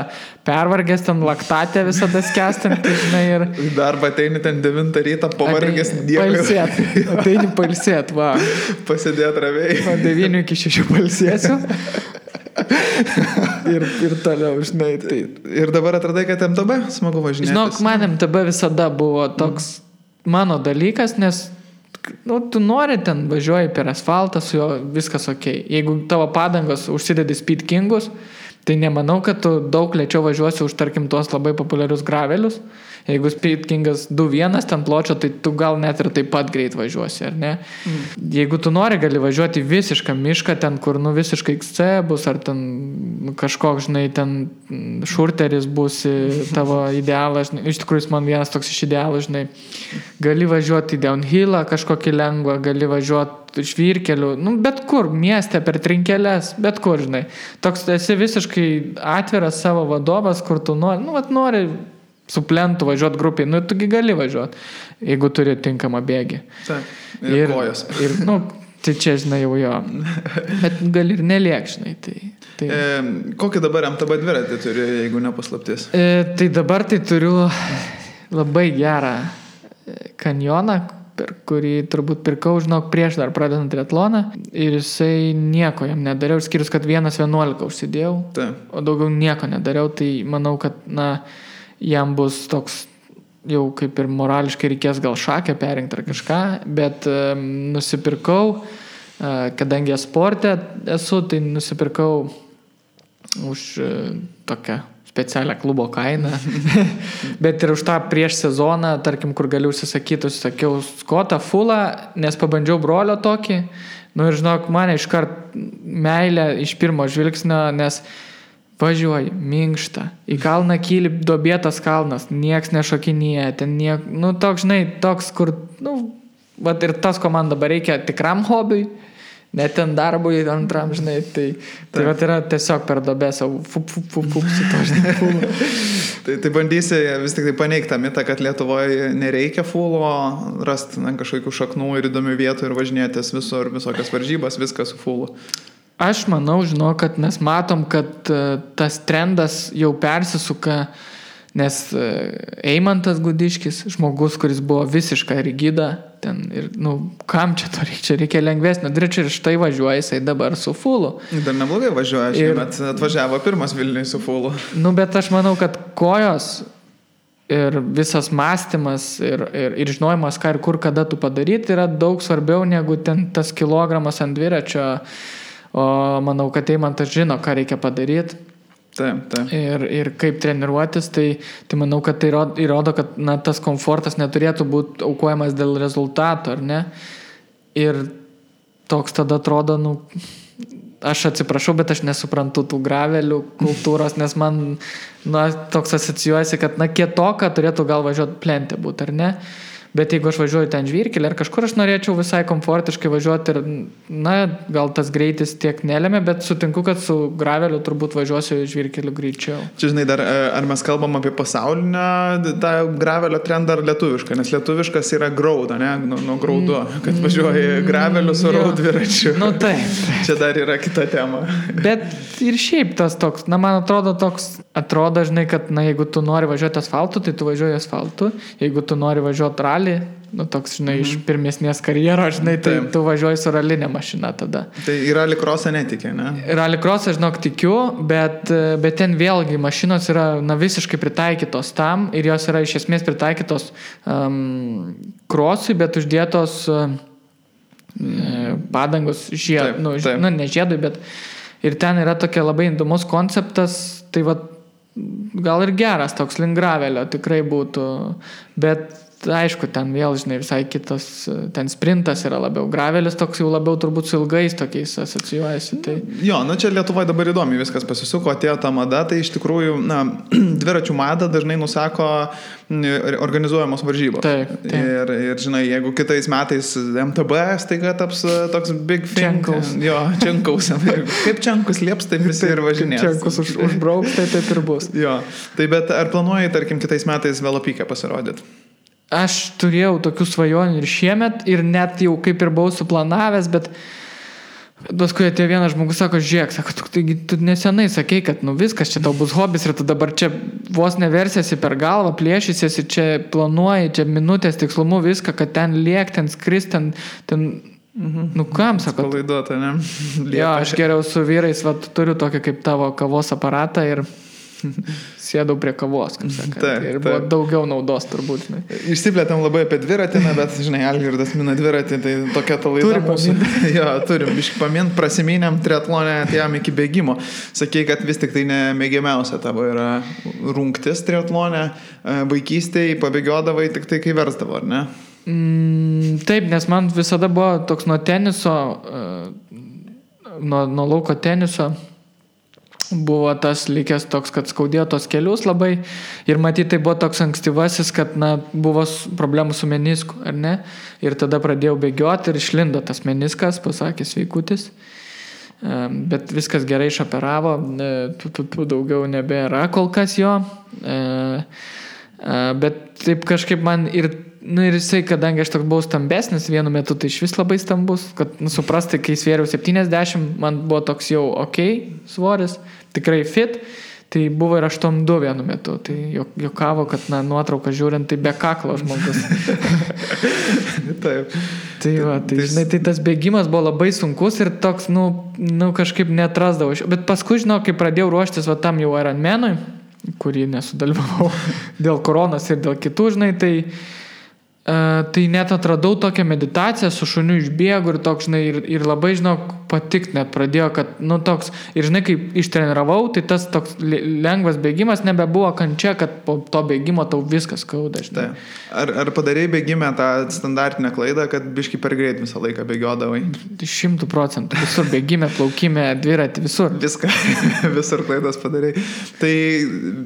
pervargęs, ten laktatė visada skęstant, žinai, ir... Darbą ateini ten 9 rytą, pavargęs dievai. Ateini pailsėt, va. Pasidėt ramiai. Nuo 9 iki 6 pailsėsiu. ir toliau, žinai, tai... Ir dabar atradai, kad MTB smagu važinėtis? Žinok, man MTB visada buvo toks mano dalykas, nes tu nori ten važiuoji per asfaltą, su juo viskas okei. Jeigu tavo padangos užsidedi Speed Kingus, tai nemanau, kad tu daug lėčiau važiuosi už, tarkim, tuos labai populiarius gravelius. Jeigu Speed Kingas 2.1 ten pločio, tai tu gal net ir taip pat greit važiuosi, ar ne? Jeigu tu nori, gali važiuoti visišką mišką, ten, kur, visiškai XC bus, ar ten kažkoks, žinai, ten šurteris bus tavo idealas, žinai, iš tikrųjų man vienas toks iš idealų, žinai, gali važiuoti į downhillą kažkokį lengvą, gali važiuoti žvyrkelių, bet kur, mieste, per trinkelės, bet kur, žinai. Toks esi visiškai atviras savo vadovas, kur tu nori, nori su plentu važiuoti grupiai, tugi gali važiuoti, jeigu turi tinkamą bėgį. Taip, ir kojos. Ir, tai čia, žinai, jau jo. Bet gali ir neliek, žinai. Tai. Kokį dabar MTB dviratį turi, jeigu nepaslaptis? Tai dabar tai turiu labai gerą kanjoną, per kurį turbūt pirkau, žinok, prieš dar pradedant triatloną. Ir jisai nieko jam nedariau, skirius, kad 1.11 užsidėjau, o daugiau nieko nedariau. Tai manau, kad, jam bus toks, jau kaip ir morališkai reikės gal šakę perinkti ar kažką, bet nusipirkau, kadangi sporte esu, tai nusipirkau už tokią specialią klubo kainą, bet ir už tą prieš sezoną, tarkim, kur galiu užsisakyti, užsisakiau Scottą fullą, nes pabandžiau brolio tokį, ir žinok, mane iškart meilė iš pirmo žvilgsnio, nes važiuoji, minkšta, į kalną kyli duobėtas kalnas, nieks nešokinėja, ten toks, žinai, toks, kur, ir tas, ko man dabar reikia tikram hobiui, net ten darbui antram, žinai, tai yra tiesiog per duobę savo su to, žinai, fulų. Tai bandysi vis tik tai paneigti tą mitą, kad Lietuvoje nereikia fulo, rasti kažkokių šaknų ir įdomių vietų ir važinėtis visur, visokias varžybas, viskas su fulu. Aš manau, kad mes matom, kad tas trendas jau persisuka, nes Eimantas Gudiškis, žmogus, kuris buvo visiška rigida, ten ir, kam čia to reikia, čia reikia lengvesnio dviračio ir štai važiuoja jisai dabar su fulu. Dar neblogai važiuoja, šiemet atvažiavo pirmas Vilniui su fulu. Bet aš manau, kad kojos ir visas mąstymas ir žinojimas, ką ir kur, kada tu padaryti, yra daug svarbiau negu ten tas kilogramas ant dviračio. O manau, kad Eimantas žino, ką reikia padaryti. Taip. Ir kaip treniruotis, tai manau, kad tai įrodo, kad tas komfortas neturėtų būti aukojamas dėl rezultato, ar ne? Ir toks tada atrodo, aš atsiprašau, bet aš nesuprantu tų gravelių kultūros, nes man toks asocijuojasi, kad kietoka turėtų gal važiuoti plentė būti, ar ne? Bet jeigu aš važiuoju ten žvyrkelį ar kažkur, aš norėčiau visai komfortiškai važiuoti ir, gal tas greitis tiek nelėmė, bet sutinku, kad su graveliu turbūt važiuosiu žvyrkeliu greičiau. Čia, žinai, dar ar mes kalbam apie pasaulinę tą gravelio trendą ar lietuvišką, nes lietuviškas yra graudo, ne? Nuo graudo, kad važiuoji graveliu su raud dviračiu. Taip. Čia dar yra kita tema. Bet ir šiaip tas toks, man atrodo toks atrodo, žinai, kad, jeigu tu nori važiuoti asfaltu, tai tu važiuoji asfaltu. Jeigu tu nori važiuoti rally, toks, žinai, iš pirmesnės karjeros, žinai, tai tu važiuoji su ralinė mašina tada. Tai į rallycrossą netikė, ne? Rallycrossą, žinok, tikiu, bet ten vėlgi mašinos yra, visiškai pritaikytos tam ir jos yra iš esmės pritaikytos crossui, bet uždėtos padangos ne žiedui, bet ir ten yra tokia labai įdomus konceptas, tai va, gal ir geras toks link gravelio tikrai būtų, bet aišku, ten vėl, žinai, visai kitas, ten sprintas yra labiau, gravelis toks jau labiau turbūt su ilgais tokiais asocijuojasi. Tai... Jo, čia Lietuvoje dabar įdomi viskas pasisuko, atėjo ta mada, tai iš tikrųjų, dviračių madą dažnai nusako organizuojamos varžybos. Taip. Ir, žinai, jeigu kitais metais MTB staiga taps toks big thing. Čenkaus. Jo, Čenkaus. Kaip Čenkus lieps, taip visi ir važinės. Čenkus užbrauks, tai taip ir bus. Jo, tai bet ar planuoji, tarkim, kitais metais velopykę pasirodyti? Aš turėjau tokių svajonių ir šiemet, ir net jau kaip ir buvau suplanavęs, bet paskui atėjo vienas žmogus, sako, žiūrėk, sako, tu nesenai sakei, kad viskas, čia tau bus hobis ir tu dabar čia vos neversiesi per galvą, plėšysiesi, čia planuoji, čia minutės tikslumu viską, kad ten liek, ten skris, ten kam, sako. Palaiduota, ne? Jo, aš geriau su vyrais, turiu tokį kaip tavo kavos aparatą ir sėdau prie kavos, kaip sakant. Ir buvo daugiau naudos turbūt. Išsiplėtėm labai apie dviratį, bet, žinai, Algirdas mina dviratį, tai tokia ta laida mūsų. Jo, turim biškį pamint, prasimynėm triatlonę, atėjom iki bėgimo. Sakei, kad vis tik tai nemėgiamiausia tavo yra rungtis triatlonė, vaikystėje pabėgiodavai tik tai, kai versdavo, ar ne? Taip, nes man visada buvo toks nuo teniso, nuo lauko teniso, buvo tas likęs toks, kad skaudėjo tos kelius labai ir matyti tai buvo toks ankstyvasis, kad buvo problemų su menisku, ar ne? Ir tada pradėjau bėgioti ir išlindo tas meniskas, pasakė sveikutis, bet viskas gerai išoperavo, daugiau nebėra kol kas jo, bet taip kažkaip man ir jisai, kadangi aš toks buvau stambesnis vienu metu, tai iš vis labai stambus, kad suprasti, kai svėriau 70, man buvo toks jau svoris, tikrai fit, tai buvo ir 8,2 vienu metu, tai jokavo, kad nuotrauką žiūrint, tai be kaklo žmogus. Taip. Tai va, žinai, tai tas bėgimas buvo labai sunkus ir toks, kažkaip neatrasdavau. Bet paskui, žinau, kai pradėjau ruoštis tam jau Ironmanui, kurį nesudalyvavau dėl koronos ir dėl kitų, žinai, tai net atradau tokią meditaciją su šuniu išbėgu ir toks, žinai, ir labai, žinau, patikt net pradėjo, kad, toks, ir žinai, kai ištreniravau, tai tas toks lengvas bėgimas nebebuvo kančia, kad po to bėgimo tau viskas skauda, žinai. Ar padarei bėgime tą standartinę klaidą, kad biški per greit visą laiką bėgiodavai? 100%, visur bėgime, plaukime, dviratį, visur. Visur klaidas padarai. Tai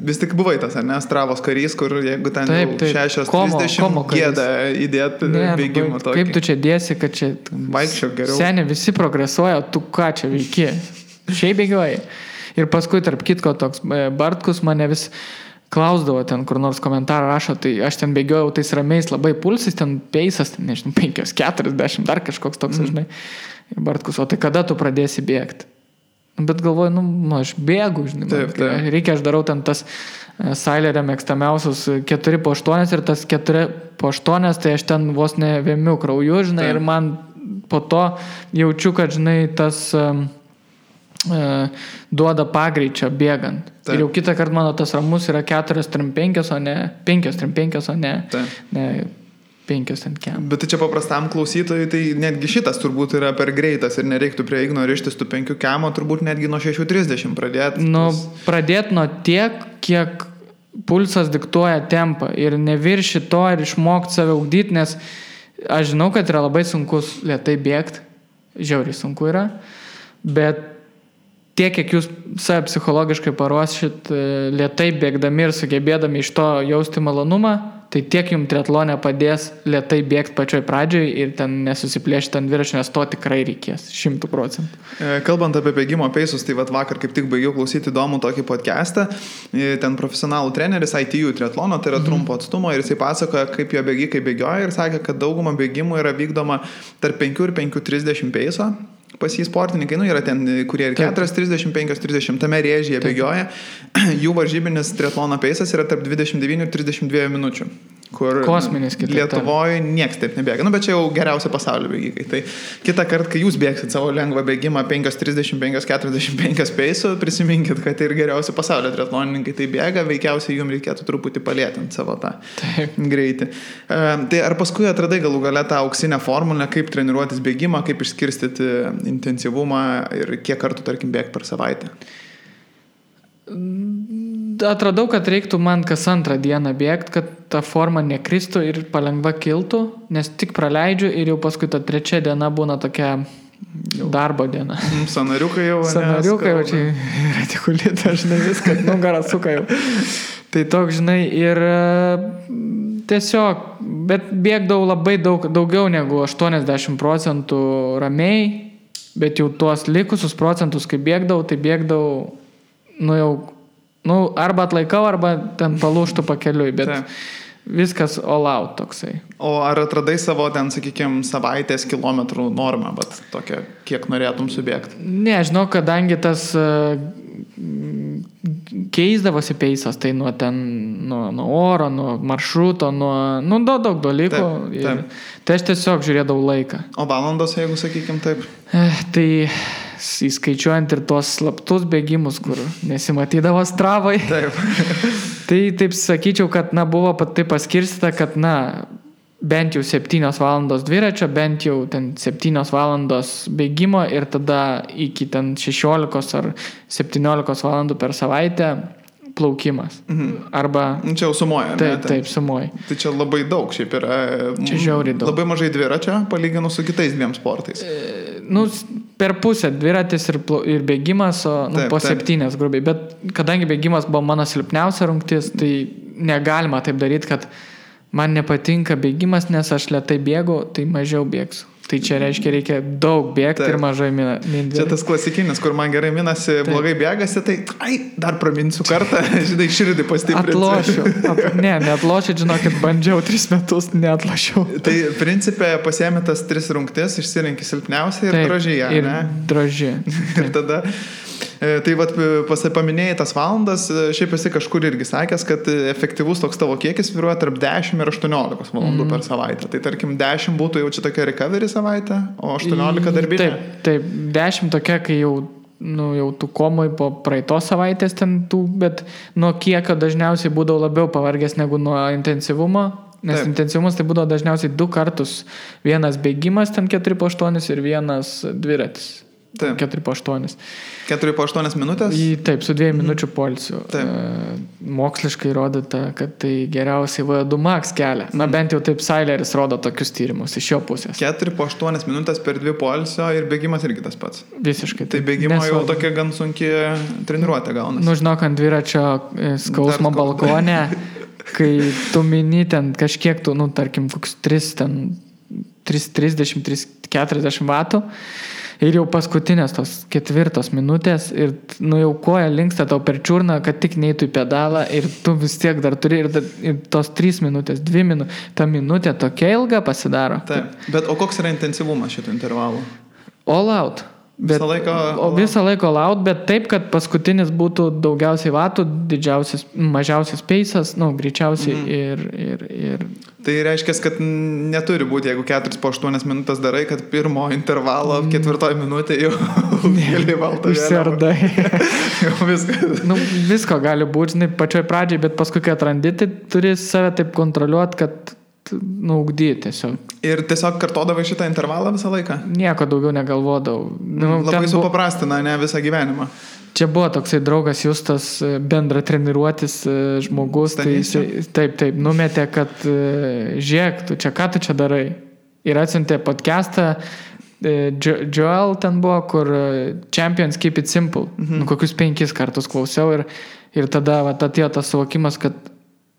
vis tik buvai tas, ar ne, Stravos karys, kur jeigu ten 6:30 gėda įdėti bėgimą tokį. Kaip tu čia dėsi, kad čia vaikščiok geriau. Seniai visi progresuoja, tu ką čia veiki? Šiaip bėgioji. Ir paskui, tarp kitko, toks Bartkus mane vis klausdavo ten, kur nors komentarą rašo, tai aš ten bėgiojau tais ramiais labai pulsais, ten peisas, nežinau, 5:40, dar kažkoks toks, žinai. Ir Bartkus, o tai kada tu pradėsi bėgti? Bet galvoju, aš bėgu, žinai. Taip. Reikia, aš darau ten tas Sailerio mėgstamiausius 4x8 ir tas 4x8, tai aš ten vos ne vėmiu krauju, žinai, ir man po to jaučiu, kad, žinai, tas duoda pagreičio bėgant. Taip. Ir jau kitą kartą mano tas ramus yra 4:35, o ne 5:35, o ne 5:10. Bet tai čia paprastam klausytojui, tai netgi šitas turbūt yra per greitas ir nereiktų prie Igno rištis tų 5 km, turbūt netgi nuo 6:30 pradėti. Pradėti nuo tiek, kiek pulsas diktuoja tempą ir nevirši to ir išmokti save ugdyti, nes aš žinau, kad yra labai sunkus lėtai bėgti, žiauriai sunku yra, bet tiek, kiek jūs save psichologiškai paruošit lėtai bėgdami ir sugebėdami iš to jausti malonumą, tai tiek jums triatlone padės lėtai bėgti pačioj pradžioj ir ten nesusiplėšti ant dviračio, nes to tikrai reikės 100%. Kalbant apie bėgimo peisus, tai vakar kaip tik baigiau klausyti įdomų tokį podcastą, ten profesionalų treneris ITU triatlono, tai yra trumpo atstumo, ir jisai pasakoja, kaip jo bėgikai bėgioja ir sakė, kad dauguma bėgimų yra vykdoma tarp 5 ir 5:30 peiso. pas jį sportininkai, yra ten, kurie ir 4:30, 5:30 tame rėžyje bėgioja, jų varžybinis triatlono peisas yra tarp 29 ir 32 minučių. Kur kosminis Lietuvoje nieks taip nebėga. Bet čia jau geriausia pasaulio bėgikai. Tai kitą kartą, kai jūs bėgsit savo lengvą bėgimą 5:30, 5:45 peisu, prisiminkit, kad ir geriausi pasaulio triatlonininkai tai bėga, veikiausiai jums reikėtų truputį palėtinti savo tą greitį. Tai ar paskui atradai galų gale tą auksinę formulę, kaip treniruotis bėgimą, kaip išskirstyti intensyvumą ir kiek kartų, tarkim, bėgti per savaitę? Atradau, kad reiktų man kas antrą dieną bėgti, kad ta forma nekristų ir palengva kiltų, nes tik praleidžiu ir jau paskui ta trečia diena būna tokia darbo diena. Sanariukai jau. Sanariukai jau čia retikulita, žinai, viskas, nugarą suka jau. Tai toks, žinai, ir tiesiog, bet bėgdavau labai daugiau negu 80% ramiai, bet jau tuos likusius procentus, kai bėgdavau, tai bėgdavau arba atlaikau, arba ten palūštų pakeliui, bet viskas all out toksai. O ar atradai savo ten, sakykime, savaitės kilometrų normą, bet tokia, kiek norėtum subėgti? Ne, žinau, kadangi tas keisdavosi peisas, tai nuo oro, nuo maršruto, nuo daug dalykų. Taip. Tai aš tiesiog žiūrėdavau laiką. O valandos, jeigu sakykim taip? Tai įskaičiuojant ir tuos slaptus bėgimus, kur nesimatydavo Stravoj. Taip. Tai taip sakyčiau, kad buvo taip paskirstyta, kad bent jau 7 valandos dviračio, bent jau ten 7 valandos bėgimo ir tada iki ten 16 ar 17 valandų per savaitę plaukimas. Arba... Čia jau sumuoja, ne? Taip, sumuoja. Tai čia labai daug, šiaip yra... Čia žiauriai daug. Labai mažai dviračio, palyginus su kitais dviem sportais. Per pusę dviratis ir bėgimas, po 7 grubiai. Bet kadangi bėgimas buvo mano silpniausia rungtis, tai negalima taip daryti, kad man nepatinka bėgimas, nes aš lėtai bėgu, tai mažiau bėgsiu. Tai čia reikia daug bėgti ir mažai minti. Čia tas klasikinis, kur man gerai minasi, blogai bėgasi, tai dar praminsiu kartą, žinai, širdį pastiprinsiu. Atlošiu. Neatlošiu, žinokit, bandžiau 3 metus, neatlošiau. Tai principė pasiemi tas 3 rungtis, išsirinki silpniausią ir drožyje, ne? Ir drožyje. Ir tada... Tai paminėjai tas valandas, šiaip esi kažkur irgi sakęs, kad efektyvus toks tavo kiekis svyruoja tarp 10 ir 18 valandų per savaitę. Tai tarkim 10 būtų jau čia tokia recovery savaitė, o 18 darbinė. Taip, 10 tokia, kai jau tu komoj po praeitos savaitės ten bet nuo kiekio dažniausiai būdavo labiau pavargęs negu nuo intensyvumo. Nes intensyvumas tai būdavo dažniausiai 2 kartus. Vienas bėgimas ten 4x8 ir vienas dviratis. 4x8. 4x8 minutės? Taip, su 2 minučių poilsiu. Moksliškai rodyta, kad tai geriausiai VO2 max kelia. Bent jau taip Saileris rodo tokius tyrimus iš jo pusės. 4x8 minutės per 2 poilsio ir bėgimas irgi tas pats. Visiškai. Tai bėgimo jau tokia gan sunki treniruotė gaunasi. Žinok, ant dviračio skausmo balkone, kai tu mini ten kažkiek tu, tarkim, koks 330-340 vatų, ir jau paskutinės tos 4 minutės ir jau koja linksta tau per čiurną, kad tik neitų į pedalą ir tu vis tiek dar turi ir tos 3 minutės, 2 minutės, ta minutė tokia ilga pasidaro. Taip, bet o koks yra intensyvumas šito intervalo? All out. Visą laiko all out, bet taip, kad paskutinis būtų daugiausiai vatų, mažiausias peisas, greičiausiai ir... Tai reiškia, kad neturi būti, jeigu 4x8 minutės darai, kad pirmo intervalo 4 minutė jau gali valtą išsiardai. Jau viskas. Visko gali būti, žinai, pačioj pradžiai, bet paskui, kai atrandi, tai turi save taip kontroliuoti, kad ugdyti tiesiog. Ir tiesiog kartodavai šitą intervalą visą laiką? Nieko daugiau negalvodavau. Labai supaprastina, ne visą gyvenimą. Čia buvo toksai draugas Justas, bendra treniruotis žmogus, tai taip, numetė, kad žiūrėk, ką tu čia darai. Ir atsiuntė podcastą, Joel ten buvo, kur Champions Keep It Simple. Kokius 5 kartus klausiau ir tada atėjo tas suvokimas, kad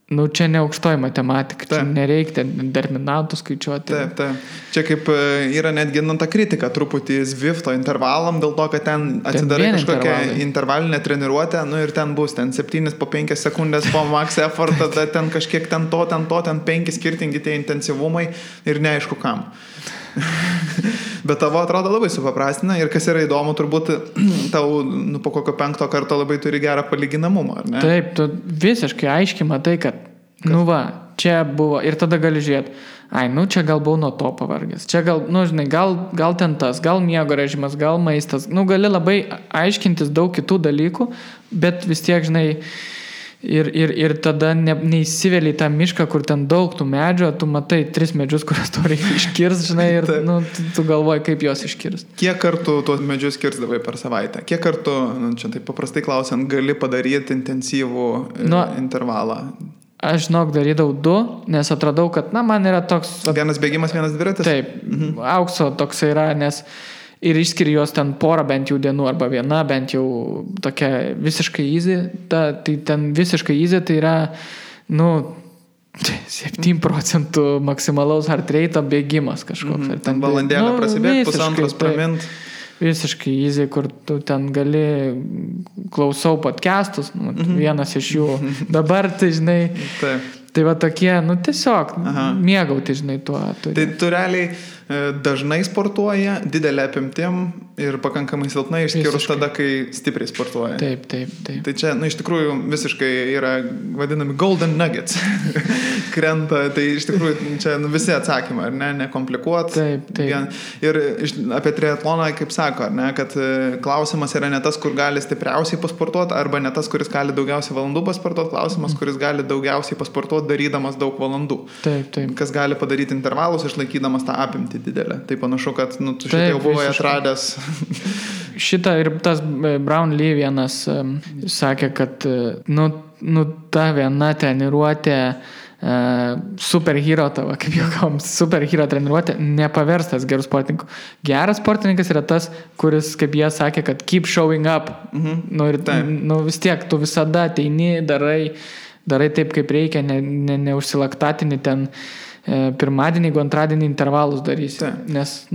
čia ne aukštoji matematika, čia nereikia determinantų skaičiuoti. Taip. Čia kaip yra netgi ta kritika truputį Zwifto intervalam, dėl to, kad ten atsidarai kažkokią intervalinę treniruotę, ir ten bus 7 po 5 sekundės po max effort, tada ten kažkiek ten 5 skirtingi tie intensyvumai ir neaišku kam. Bet tavo atrodo labai supaprastina ir kas yra įdomu, turbūt tau po kokio 5 karto labai turi gerą palyginamumą, ar ne? Taip, tu visiškai aiškiai matai, kad nu va, čia buvo ir tada gali žiūrėti, čia gal buvau nuo to pavargęs, čia gal, žinai, gal ten tas, gal miego režimas, gal maistas, gali labai aiškintis daug kitų dalykų, bet vis tiek, žinai, ir tada neįsivėlį į tą mišką, kur ten daug tų medžių, tu matai 3 medžius, kurias tu reikia iškirsti, žinai, ir tu galvoji, kaip juos iškirsti. Kiek kartų tuos medžius kirsdavai per savaitę? Kiek kartų, čia taip paprastai klausiant, gali padaryti intensyvų intervalą? Aš, darydavau 2, nes atradau, kad, man yra toks... Vienas bėgimas, vienas dviratis? Taip, aukso toks yra, nes... Ir išskiri juos ten porą bent jau dienų, arba viena bent jau tokia visiškai easy. Tai ten visiškai easy tai yra, 7% maksimalaus heart rate bėgimas kažkoks. Ten valandėlę prasibėgti, pusantros pramint. Visiškai easy, kur tu ten gali klausau podcastus, vienas iš jų. Dabar, tai žinai... Taip. Tai va tokie, tiesiog mėgauti, žinai, tuo. Tai tu realiai dažnai sportuoja, didelė apimtim ir pakankamai silpnai, išskyrus tada, kai stipriai sportuoja. Taip. Tai čia, iš tikrųjų, visiškai yra vadinami golden nuggets. Krenta, tai iš tikrųjų čia visi atsakymai, ar ne, nekomplikuot. Taip. Ir apie triatloną, kaip sako, ar ne, kad klausimas yra ne tas, kur gali stipriausiai pasportuoti, arba ne tas, kuris gali daugiausiai valandų pasportuoti, klausimas, kuris gali daugiausiai pasportuoti, darydamas daug valandų. Taip. Kas gali padaryti intervalus, išlaikydamas tą apimtį didelę. Tai panašu, kad tu šitą jau buvai atradęs. Šitą ir tas Brown Lee vienas sakė, kad ta viena treniruotė superhero tavo, kaip juokavom, superhero treniruotė nepaverstas gerų sportininkų. Geras sportininkas yra tas, kuris, kaip jie sakė, kad keep showing up. Vis tiek tu visada ateini, darai taip, kaip reikia, neužsilaktatini ten pirmadienį, jeigu antradienį intervalus darysi. Nes,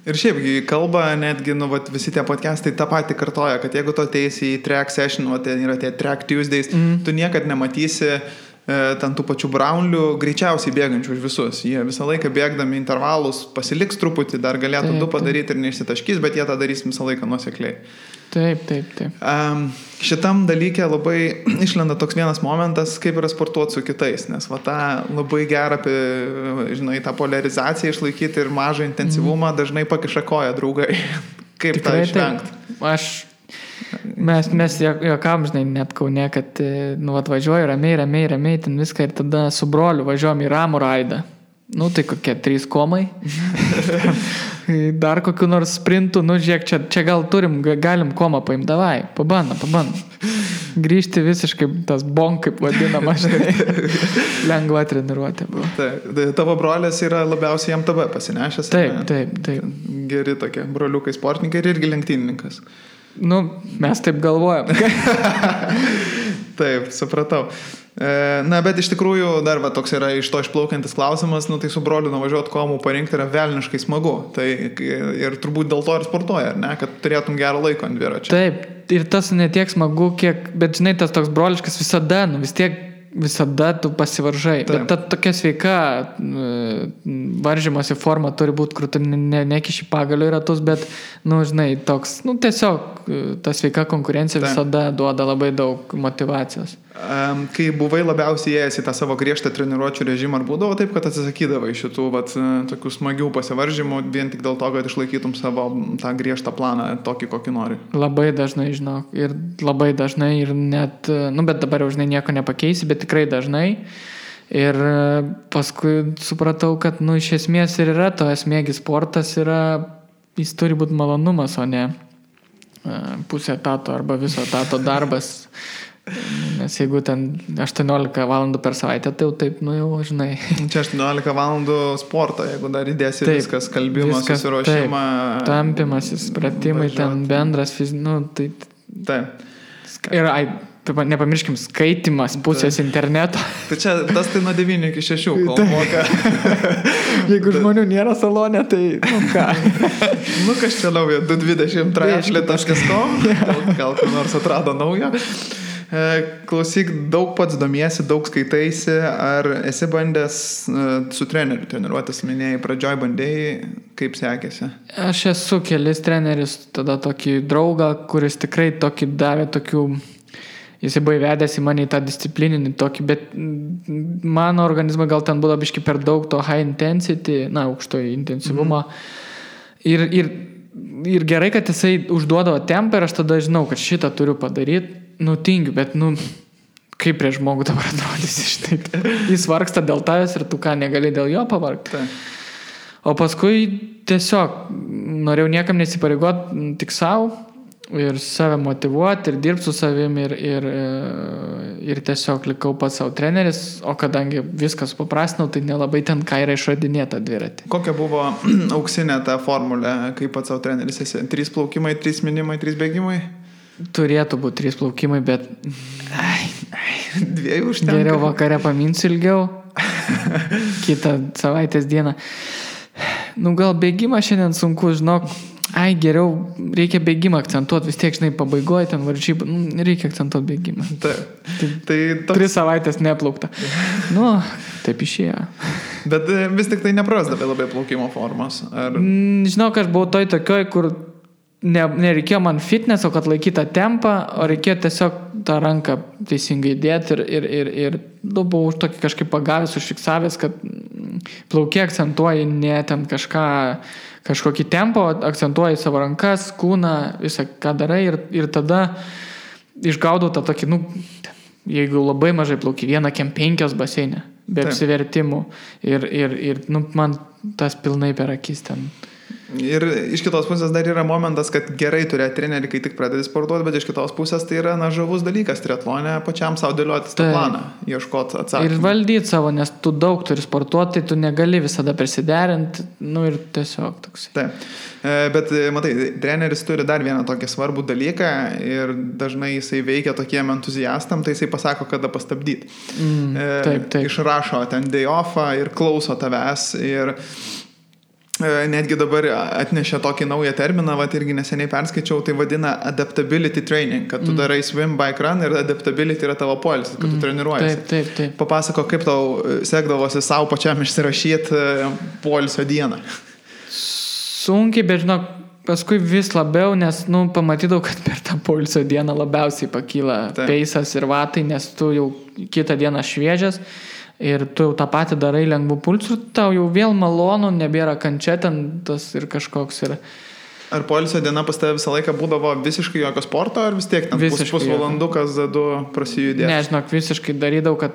Ir šiaip, kalba netgi, visi tie podcastai tą patį kartoja, kad jeigu tu ateisi į track session, ten yra tie track Tuesdays, tu niekad nematysi ten tų pačių Brownlių greičiausiai bėgančių už visus. Jie visą laiką bėgdami intervalus pasiliks truputį, dar galėtų 2 padaryti ir neišsitaškys, bet jie tą darys visą laiką nuosekliai. Taip. Šitam dalykė labai išlenda toks vienas momentas, kaip yra sportuoti su kitais, nes tą labai gerą, žinai, tą polarizaciją išlaikyti ir mažą intensyvumą dažnai pakiša koją draugai. Kaip tą išvengti? Mes juokavom, žinai, net Kaune, kad atvažiuoju ramiai, ten viską ir tada su broliu važiuojam į ramų raidą. Tai kokie 3 komai. Dar kokiu nors sprintų, žiūrėk, čia gal galim komą paimti, davai, pabandom. Grįžti visiškai tas bonk, kaip vadinama, žinai, lengva treniruotė buvo. Tai tavo brolis yra labiausiai MTB pasinešęs. Taip. Geri tokie broliukai sportininkai ir irgi lenktynininkas. Mes taip galvojam. Taip, supratau. Bet iš tikrųjų dar toks yra iš to išplaukiantis klausimas, tai su broliu nuvažiuoti komų parinkti yra velniškai smagu. Tai ir turbūt dėl to ir sportuoja, ar ne, kad turėtum gerą laiką ant dviračio. Taip, ir tas ne tiek smagu, bet žinai, tas toks broliškas visada tu pasivaržai. Taip. Bet ta tokia sveika varžymosi forma turi būti, kur tu nekiši pagalio į ratus, bet, žinai, toks, tiesiog ta sveika konkurencija visada duoda labai daug motyvacijos. Kai buvai labiausiai ėjęs į tą savo griežtą treniruočių režimą, ar būdavo taip, kad atsisakydavai šitų tokių smagių pasivaržymų vien tik dėl to, kad išlaikytum savo tą griežtą planą, tokį, kokį nori? Labai dažnai, žinok, ir labai dažnai ir net, bet dabar jau, žinai, nieko nepakeisi, bet tikrai dažnai. Ir paskui supratau, kad, iš esmės ir yra to esmėgis sportas, jis turi būti malonumas, o ne pusė etato arba viso etato darbas. Nes jeigu ten 18 valandų per savaitę, tai jau taip, jau žinai. Čia 18 valandų sporto, jeigu dar įdėsi taip, viskas, kalbimas, susiruošimą. Tampimasis, pratimai, ten bendras Taip. Ir nepamirškim, skaitimas pusės interneto. Tai čia tas tai nuo 9 iki 6, kol moka. Jeigu žmonių nėra salone, tai ką? Kas čia nauja, 223.com, gal kur nors atrado naują. Klausyk, daug pats domiesi, daug skaitaisi, ar esi bandęs su treneriu treniruotis, minėjai, pradžioj bandėjai, kaip sekėsi? Aš esu kelis treneris, tada tokį draugą, kuris tikrai tokį davė tokių, jisai buvo įvedęs į mane į tą disciplininį tokį, bet mano organizmui gal ten buvo biški per daug to high intensity, aukšto intensyvumo. Ir gerai, kad jisai užduodavo tempą ir aš tada žinau, kad šitą turiu padaryti, tingiu, bet kaip prie žmogų dabar atrodysi, štai. Jis vargsta dėl tavęs ir tu ką negali dėl jo pavargti. O paskui tiesiog norėjau niekam nesipareigoti, tik savo ir save motivuoti ir dirbti su savim ir tiesiog likau pats savo treneris, o kadangi viskas paprastinau, tai nelabai ten ką yra išradinėta dviratį. Kokia buvo auksinė ta formulė, kaip pats savo treneris esi? 3 plaukimai, 3 minimai, 3 bėgimai? Turėtų būti 3 plaukimai, bet 2 užtenka. Geriau vakare paminsiu ilgiau, kitą savaitės dieną. Gal bėgimą šiandien sunku, žinok, geriau reikia bėgimą akcentuoti, vis tiek, žinai, pabaigoje ten varžybų, reikia akcentuoti bėgimą. Tai 3 savaitės neplaukta. Taip išėjo. Bet vis tik tai neprasdavė labai plaukimo formos. Žinok, aš buvau tokioj, kur nereikėjo man fitneso, kad laikytą tempą, o reikėjo tiesiog tą ranką teisingai dėti ir buvau už tokį kažkaip pagavęs, užfiksavęs, kad plaukė akcentuoji ne ten kažkokį tempą, akcentuoji savo rankas, kūną, visą ką darai ir tada išgaudau tą tokį, jeigu labai mažai plauki, 1,5 baseinė, be apsivertimų ir man tas pilnai per akis ten. Ir iš kitos pusės dar yra momentas, kad gerai turėti trenerį, kai tik pradedi sportuoti, bet iš kitos pusės tai yra žavus dalykas triatlone, pačiam savo dėliotis tą planą, ieškoti atsakymą. Ir valdyti savo, nes tu daug turi sportuoti, tai tu negali visada prisiderinti, ir tiesiog toks. Taip, bet matai, treneris turi dar vieną tokį svarbų dalyką ir dažnai jisai veikia tokiem entuziastam, tai jisai pasako, kada pastabdyti. Taip. Išrašo ten day offą ir klauso tavęs ir netgi dabar atnešė tokį naują terminą, irgi neseniai perskaičiau, tai vadina adaptability training, kad tu darai swim, bike, run ir adaptability yra tavo poilsis, kad tu treniruojasi. Taip. Papasako, kaip tau sekdavosi savo pačiam išsirašyti poilsio dieną. Sunkiai, bet žinok, paskui vis labiau, nes, pamatydavau, kad per tą poilsio dieną labiausiai pakyla peisas ir vatai, nes tu jau kitą dieną šviežias. Ir tu jau tą patį darai lengvų pulsų, tau jau vėl malonu, nebėra kančia ten tas ir kažkoks yra. Ar poilsio diena pas tave visą laiką būdavo visiškai jokio sporto, ar vis tiek ten pusvalandukas, 2 prasijudėti? Ne, žinok, visiškai darydavau, kad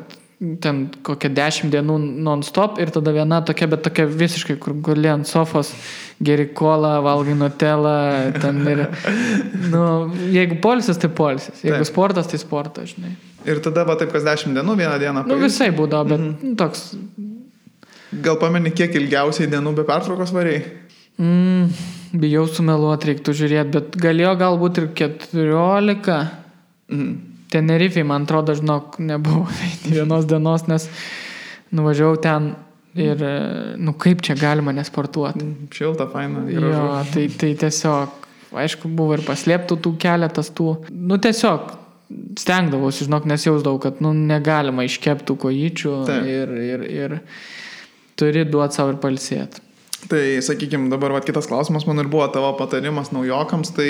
ten kokią 10 dienų non-stop ir tada viena tokia, bet tokia visiškai, kur guli ant sofos, geri kolą, valgai nutelą, ten ir, jeigu poilsis, tai poilsis, jeigu sportas, tai sportas, žinai. Ir tada taip, kas 10 dienų, vieną dieną pailsi? Visai būdavo, bet toks. Gal pameni, kiek ilgiausiai dienų be pertraukos varėjai? Bijau sumeluoti, reiktų žiūrėti, bet galėjo galbūt ir 14. Tenerifei, man atrodo, žinok, nebuvo vienos dienos, nes nuvažiavau ten ir, kaip čia galima nesportuoti. Šilta, faina. Jo, tai tiesiog, aišku, buvo ir paslėptų tų keletas tų, tiesiog stengdavausi, žinok, nes jausdavau, kad negalima iškeptų kojyčių ir turi duoti savo ir palsėti. Tai, sakykime, dabar kitas klausimas, man ir buvo tavo patarimas naujokams, tai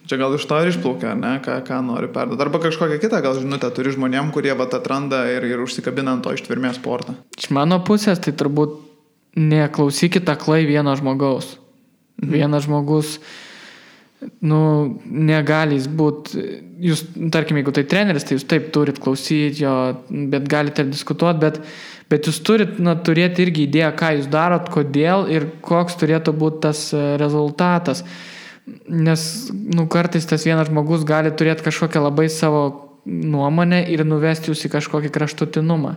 čia gal iš to ir išplaukia, ne, ką nori perduoti. Arba kažkokią kitą gal žinutę turi žmonėm, kurie atranda ir užsikabina ant to ištvermės sportą. Iš mano pusės, tai turbūt neklausykit aklai vieno žmogaus. Vienas žmogus negali jis būti, jūs, tarkim, jeigu tai treneris, tai jūs taip turit klausyti jo, bet galite ir diskutuoti, bet jūs turit turėti irgi idėją, ką jūs darot, kodėl ir koks turėtų būti tas rezultatas. Nes, kartais tas vienas žmogus gali turėti kažkokią labai savo nuomonę ir nuvesti jūs į kažkokį kraštutinumą.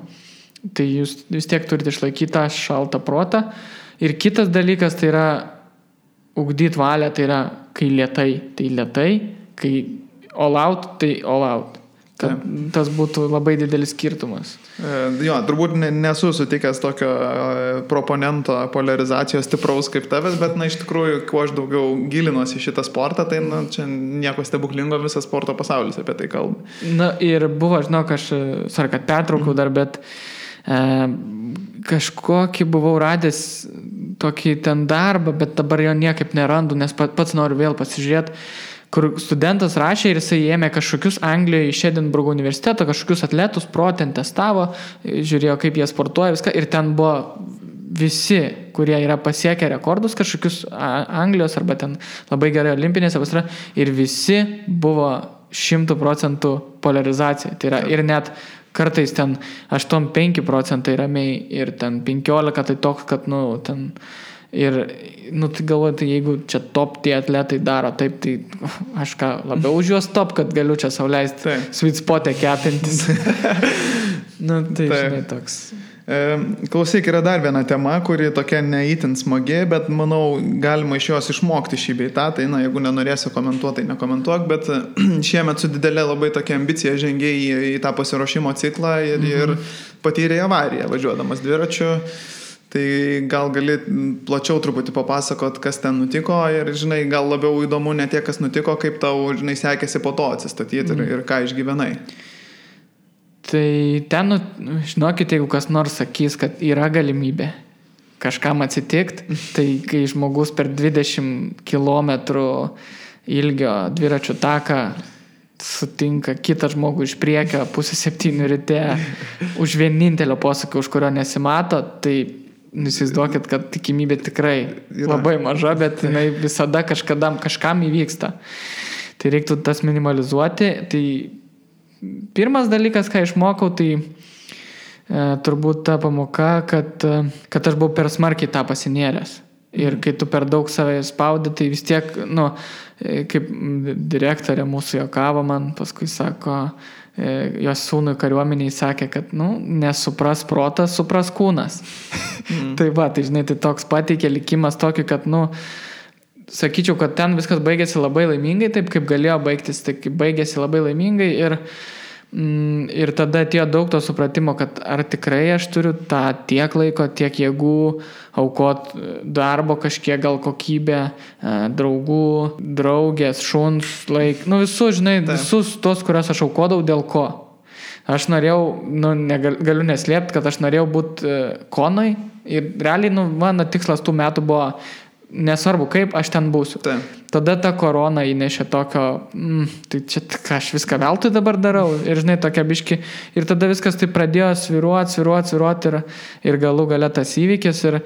Tai jūs vis tiek turite išlaikyti tą šaltą protą. Ir kitas dalykas tai yra ugdyti valią, tai yra kai lėtai, kai all out, tai all out. Kad tas būtų labai didelis skirtumas. Jo, turbūt nesu sutikęs tokio proponento polarizacijos stipraus kaip tavęs, bet iš tikrųjų, kuo aš daugiau gilinuosi šitą sportą, tai čia nieko stebuklingo, visas sporto pasaulis apie tai kalba. Ir buvo, žinok, aš, kad pertraukiau dar, bet kažkokį buvau radęs tokį ten darbą, bet dabar jo niekaip nerandu, nes pats noriu vėl pasižiūrėti, kur studentas rašė ir jisai ėmė kažkokius Anglijoje iš Edinburgo universiteto, kažkokius atletus ten testavo, žiūrėjo, kaip jie sportuoja viską ir ten buvo visi, kurie yra pasiekę rekordus kažkokius Anglijos arba ten labai gerai olimpinėse vasara ir visi buvo 100% polarizacija. Tai yra ir net kartais ten 8-5% ramiai ir ten 15 tai toks, kad, ten ir, tai galvoju, tai jeigu čia top tie atletai daro taip, tai aš ką labiau už juos top, kad galiu čia sau leisti sweet spot'e kepintis. Tai žinai toks. Klausyk, yra dar viena tema, kuri tokia neįtin smagi, bet manau galima iš jos išmokti šį bei tą, tai jeigu nenorėsi komentuoti, tai nekomentuok, bet šiemet su didelė labai tokia ambicija žengiai į tą pasiruošimo ciklą ir patyrė avariją važiuodamas dviračiu. Tai gal gali plačiau truputį papasakot, kas ten nutiko ir, žinai, gal labiau įdomu ne tiek, kas nutiko, kaip tau, žinai, sekėsi po to atsistatyti ir ką išgyvenai. Tai ten, žinokit, jeigu kas nors sakys, kad yra galimybė kažkam atsitikti, tai kai žmogus per 20 km ilgio dviračių taką sutinka kitą žmogų iš priekio 6:30 ryte už vienintelio posūkio, už kurio nesimato, tai įsivaizduokit, kad tikimybė tikrai labai maža, bet jinai visada kažkam įvyksta. Tai reiktų tas minimalizuoti. Tai pirmas dalykas, ką išmokau, tai turbūt ta pamoka, kad aš buvau per smarkiai tą pasinėręs. Ir kai tu per daug save spaudi, tai vis tiek, kaip direktorė mūsų juokavo man, paskui sako, jos sūnui kariuomeniai sakė, kad, nesupras protas, supras kūnas. Tai žinai, tai toks pateikė likimas tokį, kad, sakyčiau, kad ten viskas baigėsi labai laimingai, taip kaip galėjo baigtis, tai kaip baigėsi labai laimingai ir tada atėjo daug to supratimo, kad ar tikrai aš turiu tą tiek laiko, tiek jėgų aukot darbo kažkiek, gal kokybę, draugų, draugės, šuns, visus, žinai, visus tos, kurios aš aukodavau, dėl ko. Aš norėjau, galiu neslėpti, kad aš norėjau būti konoj ir realiai, mano tikslas tų metų buvo nesvarbu kaip, aš ten būsiu. Tada ta korona įnešė tokio, tai čia aš viską veltui dabar darau ir, žinai, tokia biški. Ir tada viskas tai pradėjo sviruoti ir galų gale tas įvykis ir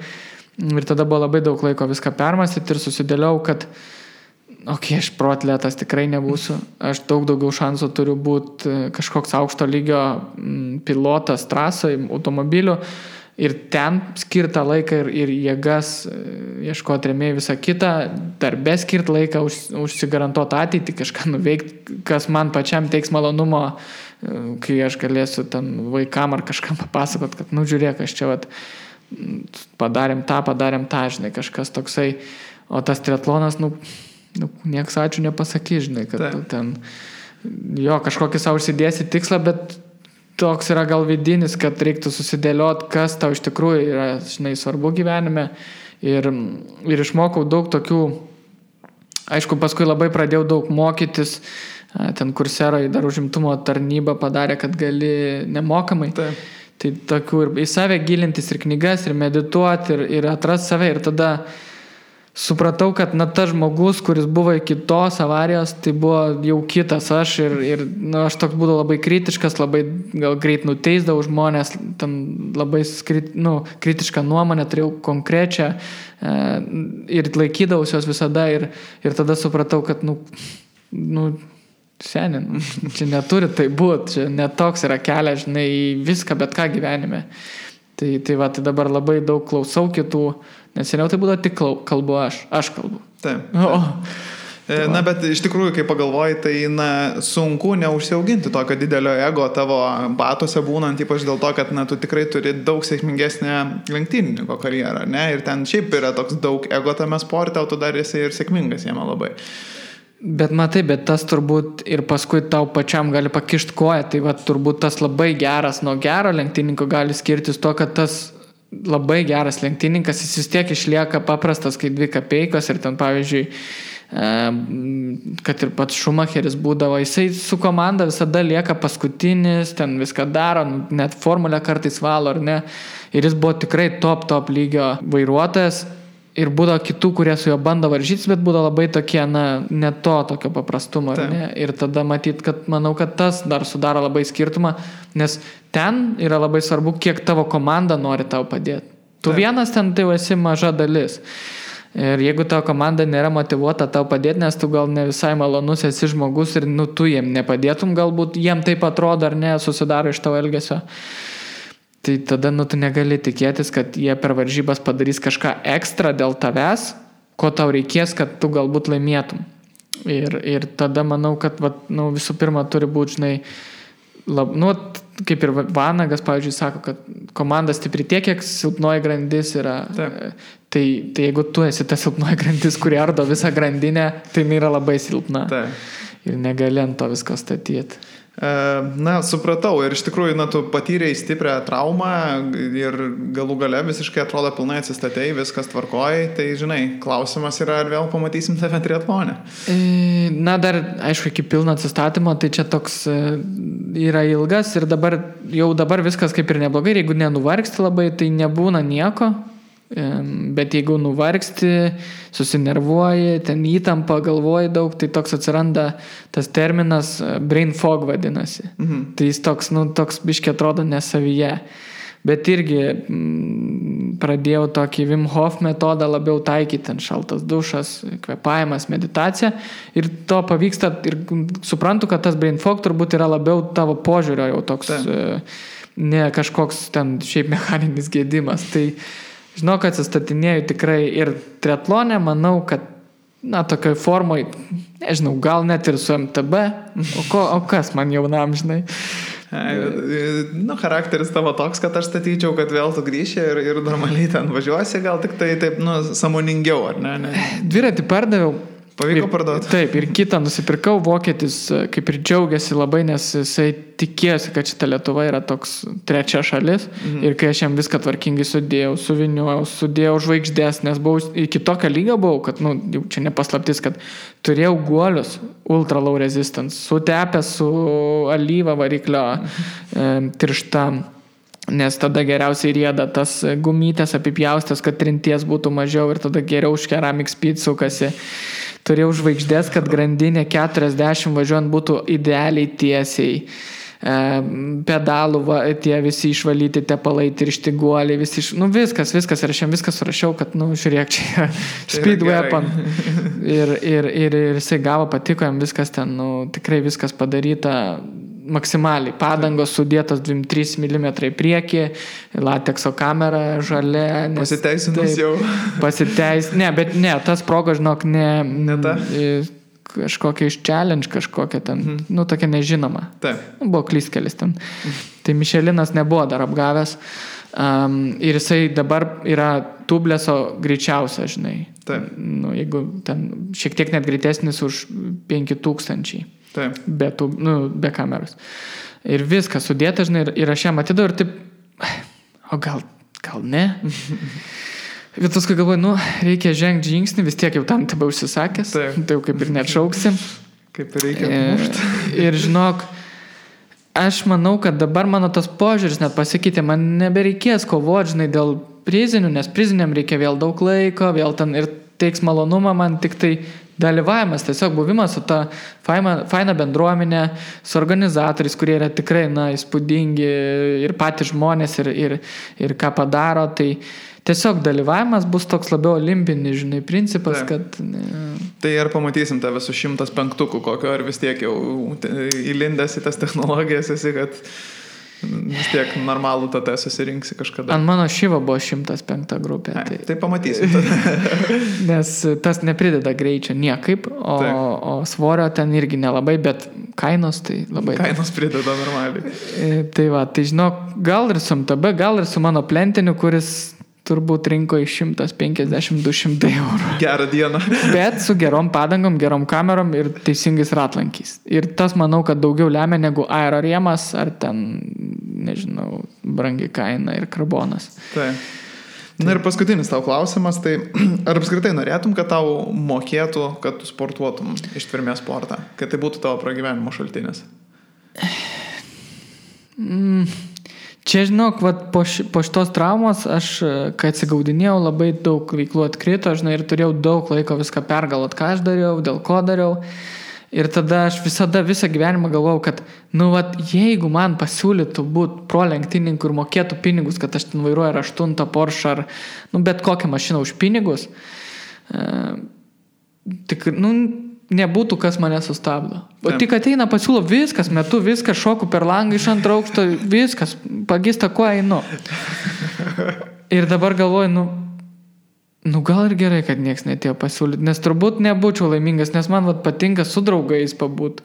tada buvo labai daug laiko viską permąstyti ir susidėliau, kad aš proatletas tikrai nebūsiu. Aš daug daugiau šansų turiu būti kažkoks aukšto lygio pilotas trasoje, automobiliu. Ir ten skirtą laiką ir jėgas ieškoti rėmėjų visą kitą, darbe skirti laiką, užsigarantuoti ateitį, kažką nuveikti, kas man pačiam teiks malonumo, kai aš galėsiu ten vaikam ar kažkam papasakot, kad, žiūrėk, aš čia padarėm tą, žinai, kažkas toksai. O tas triatlonas, nieks ačiū nepasakys, žinai, kad tu ten kažkokį savo užsidėsi tikslą, bet toks yra gal vidinis, kad reiktų susidėlioti, kas tau iš tikrųjų yra, žinai, svarbu gyvenime. Ir išmokau daug tokių, aišku, paskui labai pradėjau daug mokytis, ten Coursera dar užimtumo tarnybą padarė, kad gali nemokamai. Tai tokių ir į save gilintis, ir knygas, ir medituoti, ir atrasti save. Ir tada supratau, kad tas žmogus, kuris buvo iki tos avarijos, tai buvo jau kitas aš ir aš toks būdavau labai kritiškas, labai gal greit nuteisdavau žmonės, ten labai kritišką nuomonę turėjau konkrečią ir laikydavausi jos visada ir tada supratau, kad seniai, čia neturi tai būti, čia netoks yra kelias, žinai, į viską, bet ką gyvenime. Tai dabar labai daug klausau kitų, nes seniau tai būdavo tik kalbu aš kalbu. Taip. Bet iš tikrųjų, kai pagalvoji, tai sunku neužsiauginti tokio didelio ego tavo batuose būnant, ypač dėl to, kad tu tikrai turi daug sėkmingesnę lenktynininko karjerą, ne? Ir ten šiaip yra toks daug ego tame sporte, o tu dar esi ir sėkmingas jame labai. Bet matai, bet tas turbūt ir paskui tau pačiam gali pakišti koją, tai turbūt tas labai geras nuo gero lenktynininko gali skirtis to, kad tas labai geras lenktynininkas, jis vis tiek išlieka paprastas, kai 2 kapeikos ir ten, pavyzdžiui, kad ir pats Schumacheris būdavo, jisai su komanda visada lieka paskutinis, ten viską daro, net formulę kartais valo, ar ne, ir jis buvo tikrai top lygio vairuotojas, ir būdavo kitų, kurie su juo bando varžytis, bet būdavo labai tokie, ne to tokio paprastumo. Ne? Ir tada matyt, kad manau, kad tas dar sudaro labai skirtumą, nes ten yra labai svarbu, kiek tavo komanda nori tau padėti. Tu vienas ten tai esi maža dalis. Ir jeigu tavo komanda nėra motyvuota tau padėti, nes tu gal ne visai malonus esi žmogus ir tu jiem nepadėtum, galbūt jiem taip atrodo ar ne, susidaro iš tavo elgesio. Tai tada tu negali tikėtis, kad jie per varžybas padarys kažką ekstra dėl tavęs, ko tau reikės, kad tu galbūt laimėtum. Ir tada manau, kad visų pirma turi būti, žinai, kaip ir Vanagas, pavyzdžiui, sako, kad komanda stipri tiek, kiek silpnoji grandis yra. Tai jeigu tu esi ta silpnoji grandis, kuri ardo visą grandinę, tai yra labai silpna. Ir negali ant to visko statyti. Supratau. Ir iš tikrųjų, tu patyrei stiprią traumą ir galų gale visiškai atrodo pilnai atsistatei, viskas tvarkoji. Tai, žinai, klausimas yra, ar vėl pamatysim tave triatlone? Dar, aišku, iki pilno atsistatymo, tai čia toks yra ilgas ir dabar viskas kaip ir neblogai. Ir jeigu nenuvargsti labai, tai nebūna nieko. Bet jeigu nuvargsti, susinervuoji, ten įtampa, galvoji daug, tai toks atsiranda tas terminas brain fog vadinasi. Tai jis toks biškiai atrodo nesavyje. Bet irgi pradėjau tokį Wim Hof metodą labiau taikyti, ten šaltas dušas, kvėpavimas, meditacija. Ir to pavyksta ir suprantu, kad tas brain fog turbūt yra labiau tavo požiūrio jau toks, ne kažkoks ten šiaip mechaninis gedimas. Tai žinau, kad atsistatinėjau tikrai ir triatlone, manau, kad tokioj formoj, nežinau, gal net ir su MTB, o kas man jaunam, žinai. Charakteris tavo toks, kad aš statyčiau, kad vėl tu grįši ir normaliai ten važiuosi, gal tik tai taip, sąmoningiau, ar ne? Dviratį pardaviau. Pavyko parduoti. Taip, ir kitą nusipirkau, vokietis kaip ir džiaugiasi labai, nes jisai tikėjosi, kad šita Lietuva yra toks trečia šalis. Ir kai aš jam viską tvarkingai sudėjau žvaigždės, nes iki tokio lygio buvau, kad, jau čia nepaslaptis, kad turėjau guolius ultra low resistance, sutepę su alyva variklio tiršta. Nes tada geriausiai rieda tas gumytės apipjaustės, kad trinties būtų mažiau ir tada geriau už Ceramic Speed sukasi. Turėjau žvaigždės, kad grandinė 40 važiuojant būtų idealiai tiesiai. Pedalų, tie visi išvalyti tepalai, tiršti guoliai, viskas. Ir aš jam viskas surašiau, kad, žiūrėk, čia Speed Weapon. Ir jisai gavo, patiko jam viskas ten, tikrai viskas padaryta maksimaliai. Padangos sudėtos 2-3 mm į priekį, latekso kamera žalia. Pasiteisinus jau. Bet tas proga, žinok, ne ta. Kažkokia iš challenge, kažkokia ten, tokia nežinoma. Taip. Buvo klystkelis ten. Tai Mišelinas nebuvo dar apgavęs. Ir jisai dabar yra tubleso greičiausia, žinai. Taip. Jeigu ten šiek tiek net greitesnis už 5000. Taip. Be kameros. Ir viskas sudėta, žinai, ir aš ją matydavau ir taip, o gal ne? Bet paskui galvoju, reikia žengti žingsnį, vis tiek jau tam tebe užsisakęs, tai jau kaip ir neatšauksim. Kaip ir reikia mušti. Ir žinok, aš manau, kad dabar mano tas požiūris net pasikeitė, man nebereikės kovoti, žinai, dėl prizinių, nes priziniam reikia vėl daug laiko, vėl ten ir teiks malonumą, man tik tai dalyvavimas, tiesiog buvimas su ta faina bendruomenė, su organizatoriais, kurie yra tikrai, įspūdingi ir patys žmonės ir ką padaro, tai tiesiog dalyvavimas bus toks labiau olimpinis, žinai, principas, kad... Tai ar pamatysim tave su 105 kokio, ar vis tiek jau įlindęs į tas technologijas esi, kad vis tiek normalų tada susirinksi kažkada. Ant mano Šiva buvo 105 grupė. Tai pamatysim tada. Nes tas neprideda greičio niekaip, o svorio ten irgi nelabai, bet kainos tai labai... Kainos prideda normaliai. Tai žinok, gal ir su MTB, gal ir su mano plentiniu, kuris turbūt rinko iš 150-200 eurų. Gerą dieną. Bet su gerom padangom, gerom kamerom ir teisingais ratlankiais. Ir tas, manau, kad daugiau lemia negu aerorėmas ar ten, nežinau, brangi kaina ir karbonas. Taip. Na ir paskutinis tau klausimas, tai ar apskritai norėtum, kad tau mokėtų, kad tu sportuotum ištvermės sportą? Kad tai būtų tavo pragyvenimo šaltinis? Čia, žinok, vat, po šitos traumos aš, kai atsigaudinėjau, labai daug veiklų atkrito, žinai, ir turėjau daug laiko viską pergalvot, ką aš dariau, dėl ko dariau. Ir tada aš visą gyvenimą galvojau, kad, vat, jeigu man pasiūlytų būti pro lenktynininku ir mokėtų pinigus, kad aš ten vairuoju ar 8 Porsche ar, bet kokią mašiną už pinigus, tik, nebūtų, kas mane sustabdo. O tik ateina, pasiūlo viskas, metu viskas, šoku per langą iš 2 aukšto, viskas, pagista, kuo einu. Ir dabar galvoju, gal ir gerai, kad nieks netėjo pasiūlyti, nes turbūt nebūčiau laimingas, nes man patinka su draugais pabūt.